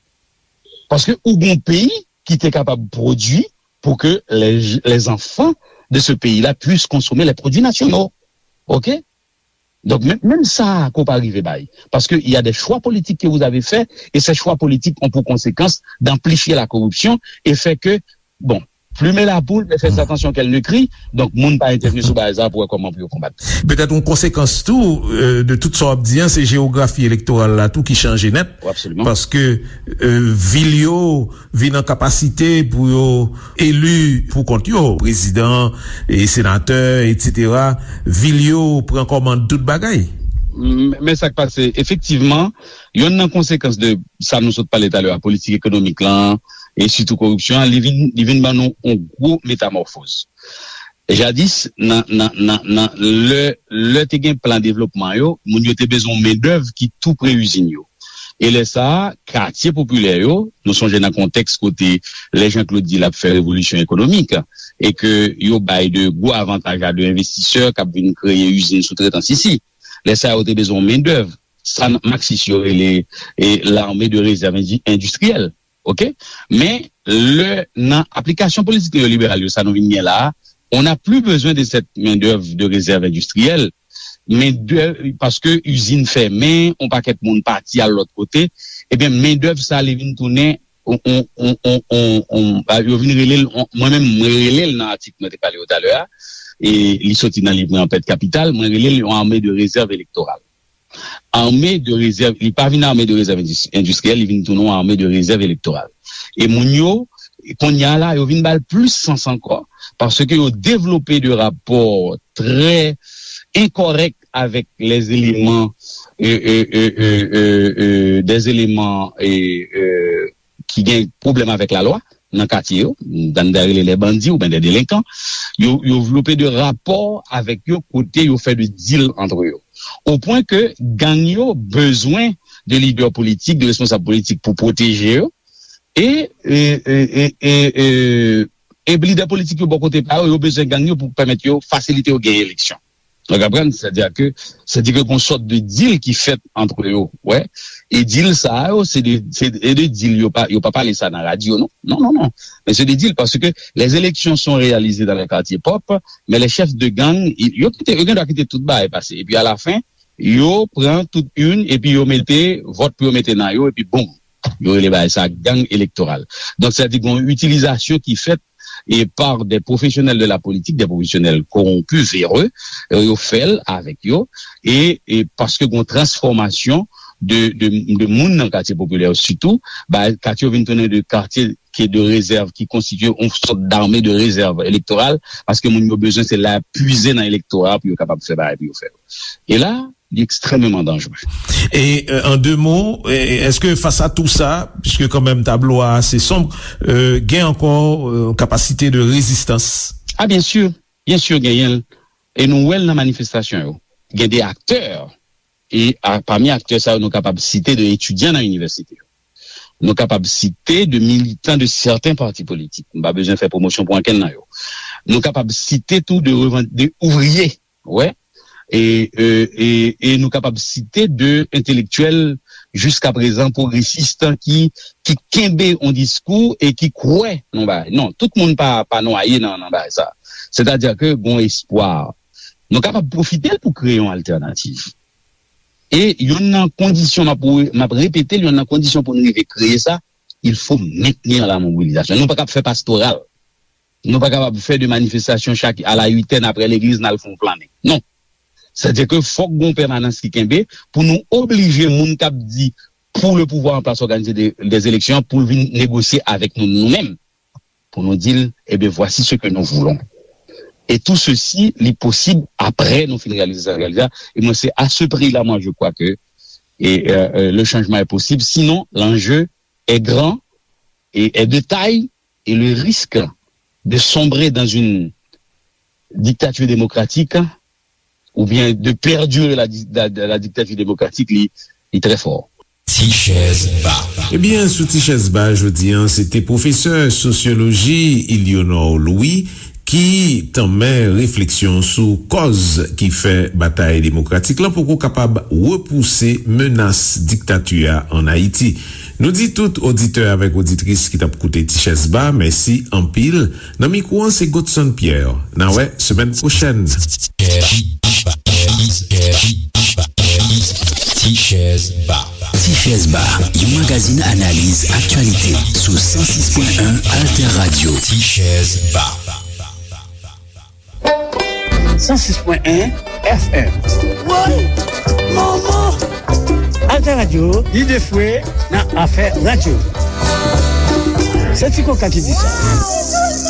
Paske ou gen yon peyi ki te kapab pwodui pour que les, les enfants de ce pays-là puissent consommer les produits nationaux. Ok? Donk, menm, menm sa, ko pa rive bay. Parce que il y a des choix politiques que vous avez faits, et ces choix politiques ont pour conséquence d'amplifier la corruption et fait que, bon, plumer la poule, mais faites attention qu'elle ne crie. Donk, moun pa entèvni sou bagay sa pou wè kòman pou yo konbat. Petèt yon konsekans tou, euh, de tout sa w ap di an, se jewografi elektoral la tou ki chanje nèt. Absolument. Paske, euh, vil yo vin an kapasite pou yo eli pou kont yo, prezidan, e senatè, etsetera. Vil yo pran kòmand tout bagay. M-, men sa k pase, efektivman, yonn nan konsekans de sa nou sot pale talè a, politik ekonomik lan, e sitou koripsyon an, li vin, li vin ban nou yon gwo metamòfoz. Jadis, nan, nan, nan, nan, lè, lè te gen plan devlopman yo, moun yo te bezwen yon mendèv ki tou pre izin yo. E lè sa a, katye popilè yo, nou sonje nan kontèks kote lè Jean Claude di l ap fè revolisyon ekonomik, e ke yo bay de gwo avantaj a de envestisè k ap vin kreye izin soutretans isi. Lè sa a, yo te bezwen yon mendèv. Sa maksis yo rele, e, l'armée de réserve indi-, industrielle. Ok? Men, lè, nan aplikasyon politik neyoliberal yo, sa nou vin gen la a, on n'a plus besoin de cette main-d'œuvre de réserve industrielle, men de, paske izin fèmen, on pakèt moun pati al lòt kote, ebyen, mendèv sa, li vin tounen, on, on, on, on, on, on, a, yo vin rele l, on, mwen menm, mwen rele l nan atik mwen te pale yo talè a, e li soti nan liv mwen An pèt kapital, mwen rele l yon armée de réserve électorale. Armée de réserve, li pa vin armée de réserve indis-, industrielle, li vin tounen yon armée de réserve électorale. E moun yo, kounye a la, yo vin ba l plis sans ankò, paske yo devlope de rapò trè enkòrèk avèk les éléments, euh, euh, euh, euh, euh, euh, des éléments, euh, euh, ki gen pwoblèm avèk lalwa nan katye yo, dan de rele les bandits oubyen des délinquants, yo, yo vlope de rapò avèk yo kote yo fè de deal entre yo. Au point que gang yo bezwen de lidè politik, de responsab politik pou pwoteje yo, e, e, e, e, e, e, e lidè politik yo bò kote pa yo, yo bezwen gang yo pou pèmèt yo fasilite yo gen eleksyon. Ou konprann? Sètadi ke, sètadi ke gon sòt de deal ki fèt antre yo, wè. E deal sa yo, se de, se de deal yo pa, yo pa pale sa nan radyo, non. Non, non, non. Men se de deal paske les élections sont réalisées dans les quartiers propres, mais les chefs de gang, i- yo kite, yo gen dwa kite tout bagay pase. Epi a la fen, yo pran tout youn, epi yo mete vòt pou yo mete nan yo, epi boum. Yo rele bagay sa gang elektoral. Donk, sètadi gon itilizasyon ki fèt e par des professionnels de la politique, des professionnels corrompus, véreux, euh, yo fè l avèk yo, e, e paske gon transfòmasyon de, de, de moun nan katye popilè yo, sitou, ba, katye yo vin tounen de katye ki de rezèv, ki konstitye yon sòt d'armée de réserve électorale, paske moun yo bezwen se la pwize nan elektora pou yo kapab fè bagay pou yo fè yo. E la, li ekstrèmeman danjere. E, euh, en deux mots, e, èske fas a tou sa, puisque quand même tablo a ase sonb, euh, gen ankò, euh, kapasite de rezistans? Ah, byen si, byen si genyen l. E nou wè l nan manifestasyon yo. Gen de aktè, e a, pami aktè sa yo, nou kapab site de etidyan nan inivèsite yo. Nou kapab site de militan de sèten pati politik. M pa bezwen fè pwomosyon pou ankenn nan yo. Nou kapab site tou de revan-, de ouvriye, wè. E, e, e, e nou kapab site de entelektyèl jiska prezan pwogresis ki, ki kenbe yon diskou e ki kwè nan bagay. Non, tout moun pa, pa nwaye nan, nan bagay sa. Sètadi ke gon espwa. Nou kapab pwofite l pou kreye yon altènativ. E youn nan kondisyon, m ap, m ap repete l, youn nan kondisyon pou nou rive kreye sa, il faut maintenir la mobilisation. Nou pa kab fè pastoral. Nou pa kapab fè de manifestasyon chak a la uitèn apre legliz n al fè yon flannen. Non. Sètadi ke fòk gon pèmanans ki kenbe pou nou oblije moun k ap di pour le pouvoir en place organiser des, des élections pou l vin negosye avèk nou, nou menm. Pou nou di l, eh bien, voici ce que nous voulons. Et tout ceci, li posib apre nou fin realize sa, realize sa. Et moi, c'est à ce prix-là, moi, je crois que et, euh, euh, le changement est possible. Sinon, l'enjeu est grand et est de taille et le risque de sombrer dans une dictature démocratique ou bien de perdurer la, di- la, la dictature démocratique, li, li très fort. Ti chèz ba. Ebyen, sou Ti chèz ba jodi an, se te pwofesè sosyoloji Ilionor Louis ki tanmen refleksyon sou kòz ki fè batay demokratik lan poko kapab repouse menas diktati a ann Ayiti. Nou di tout oditè avèk oditris ki t ap koute Ti chèz ba, mèsi anpil. Nan mikwo an, se Godson Pierre. N a wè semèn pwochèn. Ti chèz ba. Ti chèz ba, yon magazin analiz aktyalite sou san sis pwen en Alter Radio. Ti chèz ba. San sis pwen en F M. Woy! Manman! Alter Radio, lide fwe nan afè radyo. Se Ti Koka ki di sa.